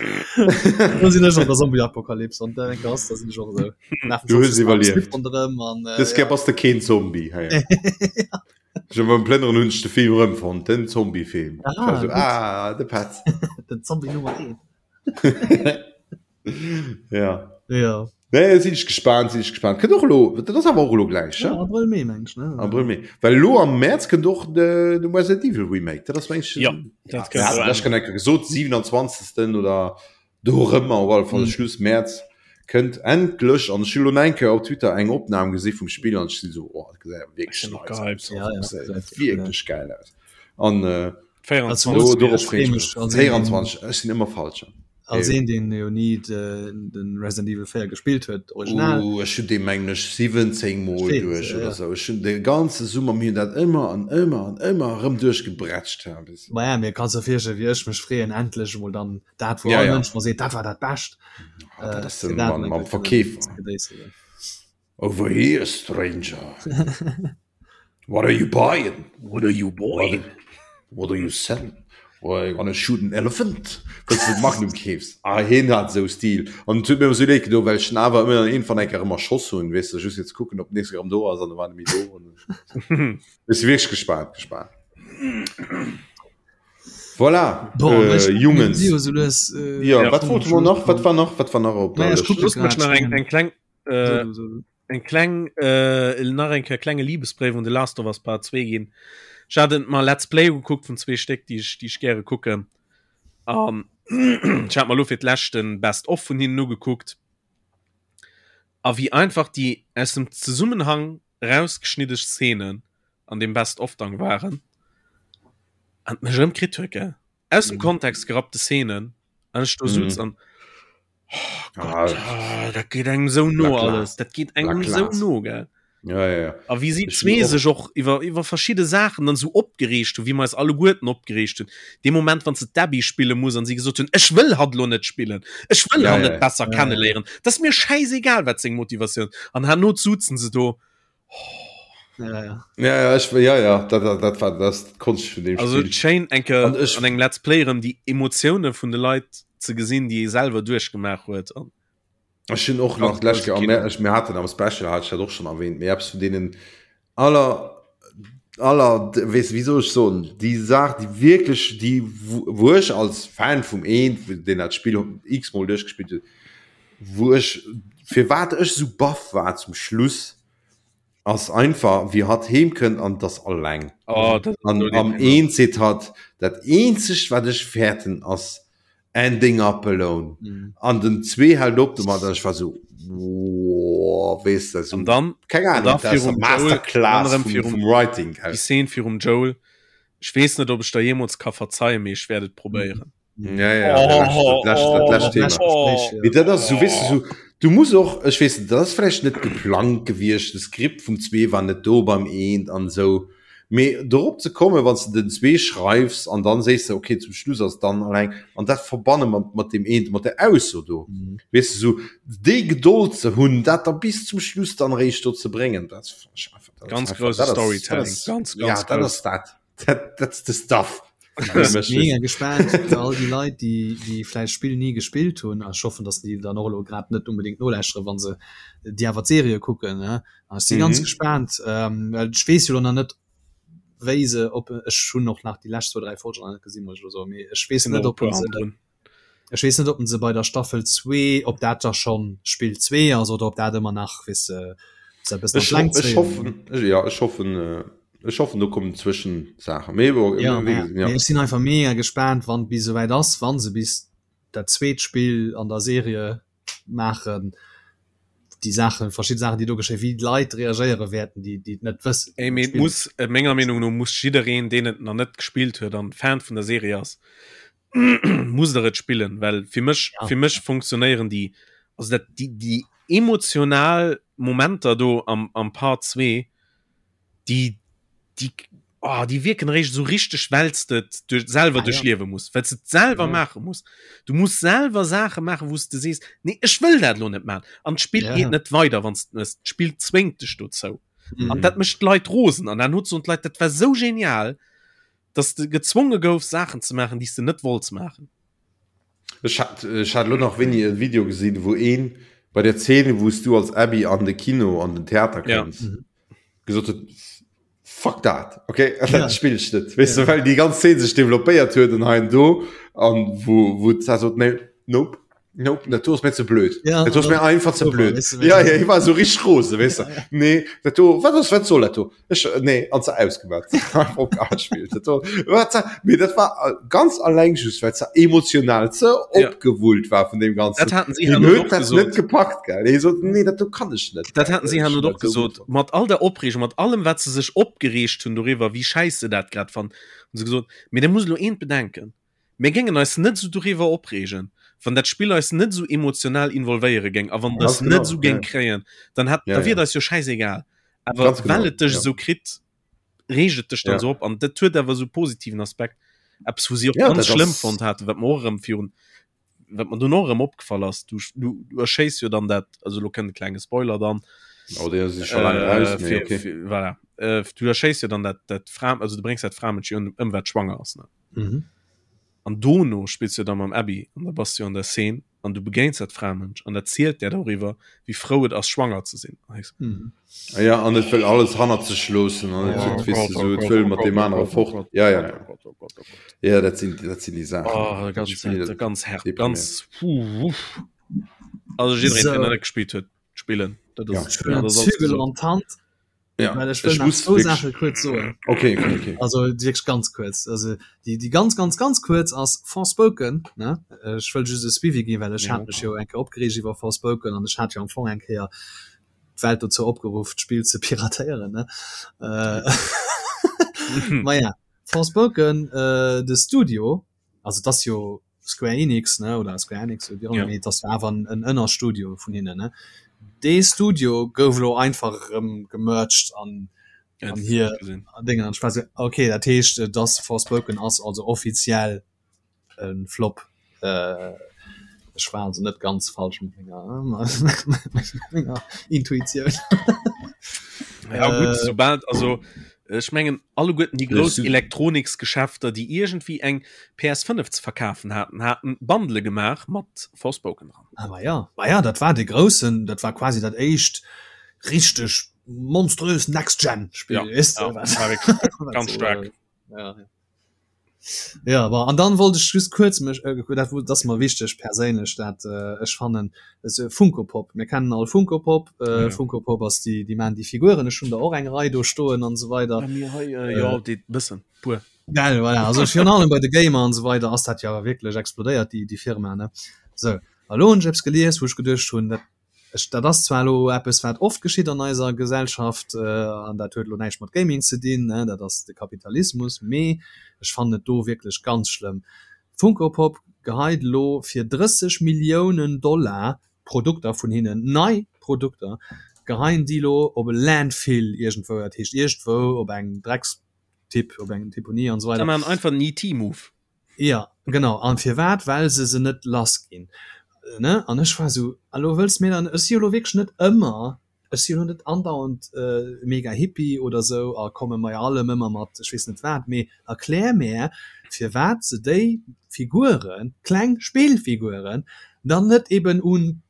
Do sinn ech an der Zombie-Apokalypse an der enker ass, da sinn ech och esou. Lafen Du hues iwwerlieft. Ronderëm an, äh, Dës Kéier bass de keen Zombie. Hei. Ech hu beim Plënneren hunn ech de Film erëmfonnt, den Zombie-Film. Ah, Ech war so, gutt. ah, de Petz. Den Zombie Nummer 1. Ja. Ja. Nee, sinn ech gespaant, sinn ech gespaant. Kënnt och elo, dat ass awer och elo gläich, Ja, Abrëll, Mee, meng ech, ne? Abrëll, Mee. Well elo am Mäerz kënnt och de, de Resident Evil Remake. Dat ass meng ech. Ja, dat kënnt Ja, och ech kann enke gesot, 27. oder dorëmmer, op alle Fall mm. Schluss Mäerz kënnt endlech an ech hunn elo eng Kéier op Twitter eng Opnam gesi vum Spill an ech sinn so, oh, dat gesäit wierklech nice aus. Ja, ja, Dat gesäit wierklech geil aus. An äh, 24. do, dorop freeë ech mech. 24, ech sinn ëmmer falsch. Als een deen jo ni de Resident Evil 4 gespillt huet original. Oh, ech hunn dee mengen ech 17 mol Steet, duerch ja. oder sou. Ech hunn de ganze Summer mir hunn dat ëmmer an ëmmer an ëmmer erëm duerchgebrätscht. Ja, bis. Ma ja, mir kanns der virstellen wéi ech mech freeën endlech emol dann dat wou Ja, all ja. Mënsch mer seet dat war dat Bescht. Ah, dat Äh, ass fir den dat mam, emol mam eng Kéier kënnen Verkeefer. ze gedéisselen. Over here, stranger. What are you buying? What are you buying? What, what are you selling? Well, I'm gonna shoot an elephant. Wëlls du Magnum keefs? Ah, hien hat esou Stil. An et huet mir ëmmer sou leed gedo, well ech en awer ëmmer iergendwann eng Kéier ëmmer erschoss hunn, weess de, just fir ze kucken, ob den nächste erëm do ass, an da war en net méi do. Ech si wierklech gespaant, gespaant. Voilà, Bon, äh, ech, Jungens. mir si jo sou lues, äh, Ja, Ja. wat wollte mer nach? Wat war nach? Wat war nach op der Naja, ech Lëscht? kucke Looss mech grad nach eng, schnell. eng kleng, äh, So du, so du. Eng kleng äh, nach eng Kéier klenge Liebesbréif un The Last of Us Part 2 ginn. Ech hat et mer Let's Play gekuckt vun zwee Stéck, déi ech, déi ech gäre kucken. An ech hat mer lo fir d'lescht den Best of vun hinnen ugekuckt. A wéi einfach déi aus dem Zesummenhang rausgeschnidde Szenen an deem Best of dann waren an mech erëm kritt huet, gell. Aus dem Kontext gerappte Szenen an ech do sutz an oh Gott, ah, dat geet engem sou no alles, dat geet engem sou no, gell. Ja, ja, ja. A wéi si zwee sech och iwwer, iwwer verschidde Saachen dann sou opgereegt hunn, wéi mer eis alleguerten opgereegt hunn. Dee Moment, wann se d'Abby spille muss an si gesot hunn, ech wëll hatt elo net spillen, ech wëll ja, hatt ja, net besser ja, ja. kenneléieren, dat ass mir schäisegal, wat seng Motivatioun. An herno sutzen se do, Ja, ja. Ja, ja, ich, ja, ja, dat, dat, dat war das Konscht vun dem Also Spiel. schéin eng Kéier An ech- an engem Let's Play erëm déi Emotioune vun de Leit ze gesinn, déi ee selwer duerchgemaach huet. An Ech hunn och nach Ganz d'lescht grouse Kéier, Kino. mir, ech, mir haten am Special, hat ech dat och schon erwähnt, mee eppes vun deenen aller, aller, weess, wéi soll ech soen, déi Saach, déi wierklech, déi, wou wou ech als Fan vum eent, deen dat Spill x-mol duerchgespillt huet, wou ech, firwat ech sou baff war zum Schluss, ass einfach wéi hatt heem kënnt an 't ass alleng. Oh, dat ass An esou am deprimant. eent seet hatt, dat eenzegt wat ech fäerten ass ending up alone. Mhm. An den 2 hält op domat an ech war sou woah, weess de, sou An dann, keng an Ahnung, da dat ass virum eng Joel, dann Masterclass erëm vum, virum vum Writing, déi gell. Szene virum Joel, ech weess net ob ech der jeemools ka verzeien, mee ech wäert et probéieren. Ja, ja, oh, dat lescht, dat lescht Thema. Oh, oh. Dat ass, so, weißt du, so, du musst och, ech weess net, dat ass vläicht net geplangt gewiescht, de Skript vum 2 war net do beim eent an esou. Mee dorop ze kommen, wann s de den 2 schreifs an dann sees de, okay, zum Schluss ass dann alleng an dat verbanne mat, mat deem eent, mat der Ausso do. Mhm. Weess de, so déi Gedold ze hunn, dat da bis zum Schluss dann eréischt do ze bréngen, dat ass einfach, dat ass Ganz einfach, grouse dat ass, dat Storytelling, ass, ganz, ja, ganz dat grouss. ass dat. That, that's the stuff. Mega gespannt fir all déi Leit, déi, déi vläicht d'Spill ni gespillt hunn. A ech hoffen, datt déi dann och elo grad net unbedéngt nolauschtere wann se déi awer d'Serie kucken. Ne? An ech si ganz Mhm. gespannt, ähm, well ech weess jo elo nach net, wéi se op ech hunn och nach déi lescht zwou, dräi Folgen nach net gesinn, muss ech elo soen, mee ech weess Sinn net, och e ob puer se hannendrun. Ech weess net, ob se bei der Staffel 2, ob dat da schonn Spill 2 ass oder ob dat ëmmer nach, weess de, se e bëssen an Ech, d'Längt ech zéien. hoffen, ja, ech hoffen, ech hoffen, do kommen Zwëschensaachen. Mee bon, Ja, wéi mä gesot, ja. mee ech sinn einfach mega gespaant, wann et bis esouwäit ass, wa se bis dat zweet Spill an der Serie maachen, déi Saachen, verschidde Saachen, déi do geschéien, wéi d'Leit reagéiere wäerten, déi, déi et net wëssen, Ey, déi mee et d'Spill muss, menger Meenung no muss jiddereen, deen et nach net gespillt huet an Fan vun der Serie ass, muss der et spillen well fir mech ja. fir mech funktionéieren die also dat die die emotional Momenter do am am Part 2 die die oh, die wirken recht so richtig wellst du durch selber ah, durchleben ja. muss weil du selber ja. machen muss du musst selber Sache machen wo du siehst nee ich will dat lo net machen an Spiel ja. geht net weiter wann das Spiel zwingt dich dazu mhm. an dat mischt Leute rosen an dann nutzt und Leute dat war so genial. Dass de gezwonge goufs Saachen ze maachen, déi s de net wollts maachen. Ech hat, ech hat elo nach wéini e Video gesinn, wou een bei der Zeen, wou s du als Abby an de Kino, an den Theater kënns, ja. gesot huet, Fuck dat, okay, ja. dat spill ech net. Weess ja. du, well déi ganz Zeen sech developpéiert huet an hei an do, an wou, wou d'Sar sot, nee, nope. Nope, dat do ass mir ze blöd. Ja, dat ass mir einfach ze blöd. Ja, ja, ich war so richtig rose, weißt du. Ja, ja. Nee, dat do, wat ass, wat soll dat do? Ech, nee, an ze ausgemacht. Spiel. Dat do, wat, nee, dat war äh, ganz alleng just, weil ze emotional ze ja. opgewullt war vun dem ganzen. Dat hatten sie huet dat net gepackt, gell. Nee, so, nee, dat do kann ich net. Dat hatten sie han och gesot. Mat all der Opregung, mat allem, wat se sech opgereegt hunn doriwwer, wie scheiße dat grad fand, hun se gesot, mee da muss lo eent bedenken. Mir géingen eis net esou doriwwer opreegen, wann dat Spill eis net esou emotional involvéiere géing a wann et eis net esou géing kréien, dann hätt, da wier et eis jo schäisegal. Awer well et dech esou kritt, reegt et dech dann esou op. An dat huet awer esou e positiven Aspekt. Eppes, wou si och ganz schlëmm fonnt haten, wat mer och erëm virun, wat mer dunn och erëm opgefall ass, du, du, du erschéiss jo dann dat, also elo kënnt e klenge Spoiler dann, Oh, dee ass scho laang eraus, mee okay. Voilà. Du erschéiss jo dann dat, dat Fra, also du bréngs dat Framënsch jo ëm, wat schwanger ass, ne? Mhm. An dono spills du da mam Abby an da bass du an der Szene an du begéins dat Framënsch an dat zielt där doriwwer, wéi frou et ass schwanger ze sinn. Mhm. Ah ja, an et wëll alles hannert sech loossen an et huet, weess du, sou, et wëll mat deem anere fort. Ja, ja, ja. Gott, oh Gott, oh Gott. Ja, dat sinn, dat sinn déi Saachen. Oh, ganz, Spill, ganz, ganz hart, deprimierend. ganz, puh, uff. Also jiddereen, So. deen dat net gespillt huet, spillen. Dat Ja. ass, Ech huelen dat ass alles Zügel gesot. an d'Hand. Ja, Well ech wëll ech nach muss zwou wierklech Saache kuerz soen. Okay, okay, okay. Also wierklech ganz kuerz. Also déi, déi ganz, ganz, ganz kuerz ass Forspoken, ne? Ech wëll just e Suivi ginn, well ech hat mech jo eng Kéier opgereegt iwwer Forspoken an ech hat jo am Fong eng Kéier d'Welt dozou opgeruff, d'Spill ze piratéieren, ne? Maja, Forspoken, de Studio, also et ass jo Square Enix ne oder Square Enix oder wéi och ëmmer, mee et ass jo awer en en Ënnerstudio vun hinnen ne. Dee Studio gouf elo einfach erëm gemerged an an hir Déngen an ech war esou okay, dat heescht et ass Forspoken ass also offiziell e Flop. Ech war also net ganz falsch mat menger mat menger Intuitioun. Ja gutt, soubal also Ech mengen alleguerten déi grouss Elektroniksgeschäfter, déi iergendwéi eng PS5 ze verkafen haten, haten Bundle gemaach mat Forspoken dran. Ah ma ja, ma ja, dat war dee groussen, dat war quasi dat éischt richteg monströs Next-Gen-Spill, Ja, weess de, ja, wat war wierklech wat ganz so, staark. äh, ja, ja. Ja, bon, an dann wollt ech just kuerz mech, äh, dat, dat ass mer wichteg perséinlech, dat äh, ech fannen, es, Funko Pop, mir kennen all Funko Pop, äh, Ja. Funko Pop ass déi, déi maan déi Figuren, ech hunn der och eng Rei do stoen an esou weider. Bei mir hei, äh, jo, déi bëssen, puer. Gell, voilà, also virun allem bei de Gamer an esou weider ass dat jo awer wierklech explodéiert, déi, déi Firma, ne. Sou, a lo hunn ech eppes gelies, wou ech geduecht hunn, dat Ech, dat ass zwar elo eppes, wat oft geschitt an eiser Gesellschaft, an dat huet elo näischt mat Gaming ze dinn, ne, dat ass de Kapitalismus, mee ech fannen et do wierklech ganz schlëmm. Funko Pop geheit elo fir 30 Milliounen Dollar Produkter vun hinnen, nei Produkter, geheien déi elo op e Landfill iergendwou, dat heescht iergendwou op eng Dreckstipp, op eng Deponie an esou weider. Se maachen einfach en ET-Move. Jo, genau. An firwat? Well se se net lass ginn, ne? An ech war esou, a lo wëlls mir dann, ech si jo lo wierklech net ëmmer, ech si jo lo net andauernd mega Hippie oder esou a komme bei allem ëmmer mat ech weess net wat, mee erklär mär, firwat se déi Figuren, kleng Spillfiguren, dann net eben un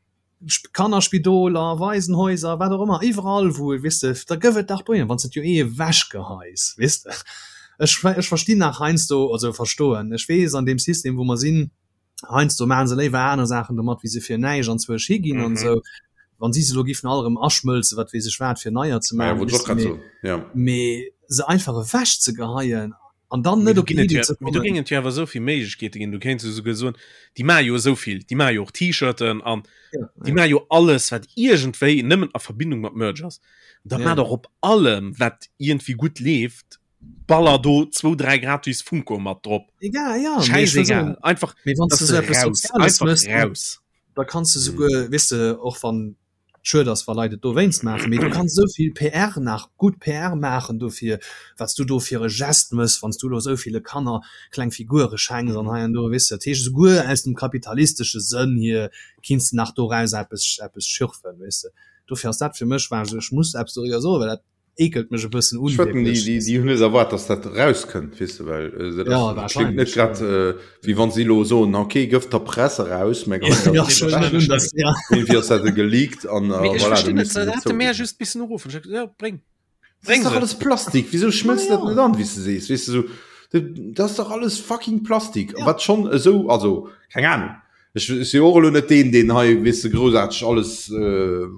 Kannerspidoler, Waisenhäuser, wat och ëmmer, iwwerall wou, weess de, da gëff et dach dohinner, wann s de et jo eh ewechgeheis, weess de. Ech, ech verstinn nach heiansdo, also verstoen, ech weess an deem System wou mer sinn, heiansdo maache se léiwer aner Saachen domat wéi se fir näischt anzwousch higinn an esou. Wann si se elo giffen all erëm aschmëlzen, wat weess ech wat, fir neier ze maachen, weess de, mee, mee se einfach ewechzegeheien an dann net op Idee ze kommen. Do géingen et jo awer esou vill Méiglechkeete ginn. Du kéints jo souguer soen, déi maache jo esou vill, déi maache jo och T-Shirten an déi maache jo alles, wat iergendwéi nëmmen a Verbindung mat Merch ass. Da maach dach op allem, wat iergendwéi gutt leeft, baller do zwou, dräi gratis Funko mat drop. Egal, ja. Schäisegal. Einfach, Mee wann s dass de se esou eppes raus, Soziales einfach méchs, raus. da kanns de souguer, weess de, och wann Schued ass wa Leit et dowéinst maachen, mee du kanns esou vill PR nach, gutt PR maachen dofir, wat s du do fir e Gest mëss, wann s du elo esou ville Kanner kleng Figure schenks an hei an do, weess de. Dat heescht, esouguer aus dem kapitalistesche Sënn hier kinns de nach doraus eppes, eppes schürfen, weess de. Dofir ass dat fir mech, war ech esou, ech muss eppes doriwwer soen, well dat. Ekelt mech e bëssen un. Ech wetten, déi, déi, déi hunn net erwaart, dass dat rauskënnt, weess de, well äh, dat Ja, ass, klingt wahrscheinlech, net grad, ja. äh, wéi wann si elo soen, okay, gëff der Press eraus, mä Ja, ja, schon net un, dass, ja. irgendwie ass dat geleakt an äh, Mee ech voilà, da verstinn net, misste se se hätte mär zouginn. just missen uruffen. Ech ja, bréng. Das ist Bréng doch se. alles Plastik. Wieso schmëlzt Ja, dat ja. net an, wéi s de sees? Weess de, so, dat dat ass dach alles fucking Plastik. Ja. Wat schonn esou, also, keng Ahnung. Ech si och elo net deen, deen hei, weess de, groussaarteg alles,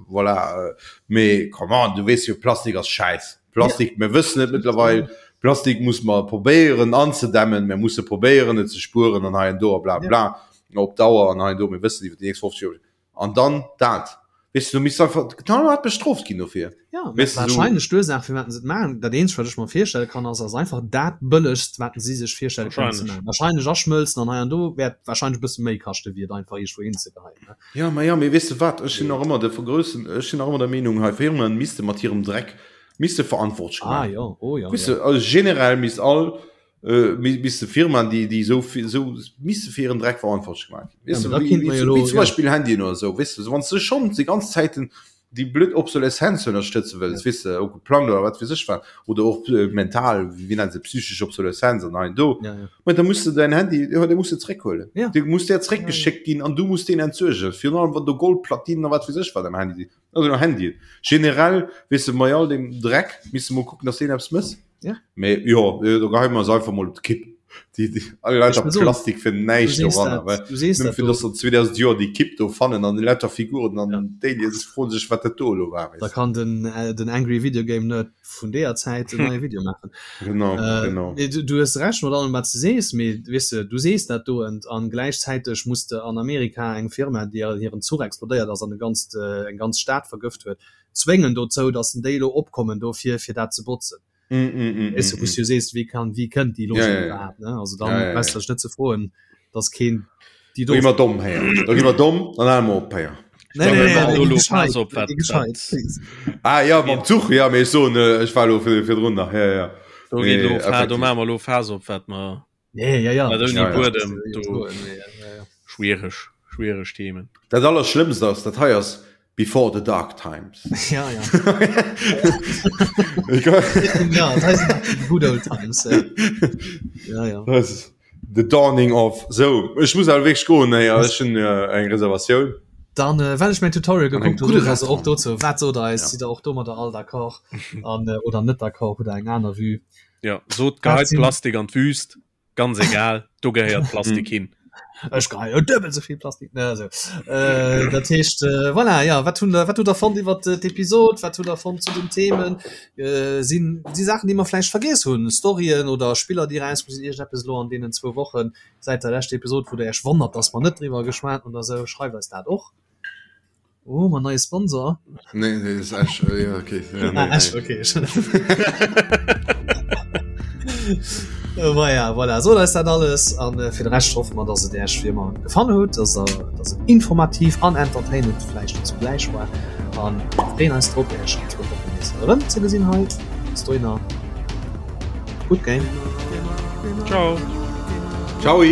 voilà, mee come on, du weess jo, Plastik ass Schäiss. Plastik, mir wëssen et mëttlerweil, Plastik muss mer probéieren anzedämmen, mir musse probéieren et ze spueren an hei an do a bla bla, op Dauer an hei an do, mir wëssen iwwer déi nächst 50 Joer. An dann dat, weess de, du misst einfach knallhart bestrooft ginn dofir. Ja, mä wahrscheinlech d'Ursaach firwat se et maachen, dat eenzegt wat ech mer virstelle kann ass, ass einfach dat bëllegst wat si sech virstelle kënnen ze maachen. Wahrscheinlech aschmëlzen an hei an do wäert wahrscheinlech e bësse méi kaschte wéi et einfach iergendwou hinzegeheien, ne? Ja, ma ja, mee weess de wat, ech sinn nach ëmmer de groussen, ech sinn nach ëmmer der Meenung hei, Firmen misste mat hirem Dreck misste verantwortlech Ah gemaach ginn. jo, oh jo, Weess de, jo. also generell misst all, misste Firmaen déi déi esou esou misste fir hiren Dreck verantwortlech gemaach ginn. Weess Ja, de, mä da wéi kinnt mer jo elo, wéi zum ja. Beispill Handyen oder esou, weess de, wann s de schonn déi ganz Zäiten déi blöd Obsoleszenz ënnerstëtze wëlls, weess de, och geplangt oder wat weess ech wat, oder och mental, wéi nennen se, psychesch Obsoleszenz an hei an do, Ja, ja. ma da muss de däin Handy, jo, dee muss de zréckhuelen. Ja. Dee muss där zréckgeschéckt ginn an du muss deen entsuergen, virun allem wann do Goldplatinen a wat weess ech wat am Handy sinn, also am Handyen. Generell, weess de, bei all deem Dreck misst de mol kucken, dass deen eppes mëss. Ja. Mee jo, do geheie mer eis einfach mol op d'Kipp. Déi, déi, all lauter Ech muss soen, Plastik fir du näischt sees doranner, dat, well du sees nëmme dat fir do. dass se 2000 Joer déi Kipp do fannen an déi lauter Figuren an Ja. d'Aliens froen sech, wat dat do elo war, Da weess de. kann den, äh, den Angry Video Game Nerd vun deeër Zäit en neie Video maachen. Genau, Äh, genau. mee du, du hues Recht mat allem, wat s de sees, mee weess de, du sees dat do ent an gläichzäiteg muss de an Amerika eng Firma, déi hiren Zuch explodéiert ass an e ganzt, eng ganz Stad vergëft huet, zwéngen dozou, dass déi elo opkommen dofir, fir dat ze botzen. Mm, mm, mm, Weißt du, mm, wou du sees, wéi kann, wéi kënnt déi Logik Ja, ja, ja. iwwerhaapt, ne? Also dann Ja, ja, ja. brauchst du dech net ze froen, dass keen déi Do gi mer domm, héier. Do gi mer domm, dann hale mer op, héier. Nee, nee, nee, Lo- nee, lo gescheit, pass op, wat- nee, gescheit, wat- please. Ah ja, mam Zuch, ja, mee ech soen, äh, ech war elo vir, virdrun nach, ja, ja. Do geet Nee, lo Fa- do effektiv. maache mer lo Phase op, wat mer Nee, ja, ja. Wat ouni Ja, ja. Buedem, do. Nee, ja, ja. Schwiereg, schwiereg Themen. Dat Allerschlëmmst ass, dat hei ass before the dark times. Ja, ja. ja, das heißt good old times. Ja, ja. ja. Das ist the dawning of. So, ech muss awer wierklech goen, héier, ech hunn äh, eng Reservatioun. Dann äh, well ech mein Tutorial An eng geguckt hunn, gudde also och Restaurant. dozou, wat sot eis, Ja. sidd der och domadder all d'accord an äh, oder net d'accord, hutt der eng aner Vue? Ja, sot geheit sinn- Plastik an d'Wüst, ganz egal, do gehéiert Plastik hin. Ech geheie jo duebel esou vill Plastik. Ne, also. Äh, dat heescht, äh, voilà, ja, wat hunn der, wat hutt der fonnt iwwer d'Episod? Wat hutt der fonnt zu den Themen? Äh, sinn si Saachen, déi mer vläicht vergiess hunn? Storyen oder Spiller, déi erauskomm sinn, iergendeppes elo an deenen zwou Wochen säit der leschter Episod, wou der Iech wonnert, dass mer net driwwer geschwat hunn oder esou? Schreift eis dat och. Oh, mein neue Sponsor. Nee, nee, ist Ash. Äh, ja, okay. Ja, nee, ah, Ash, nee. okay. Voilà, voilà. So ist dat alles an äh, fir de Rescht hoffe mer, dass et Äech wie ëmmer gefall huet, dass der, dass et informativ an entertainend vläicht zugläich war an freeën eis drop Äech an zwou Wochen nees erëm ze gesinn hei. Bis dohinner, good game. Ciao. Ciao.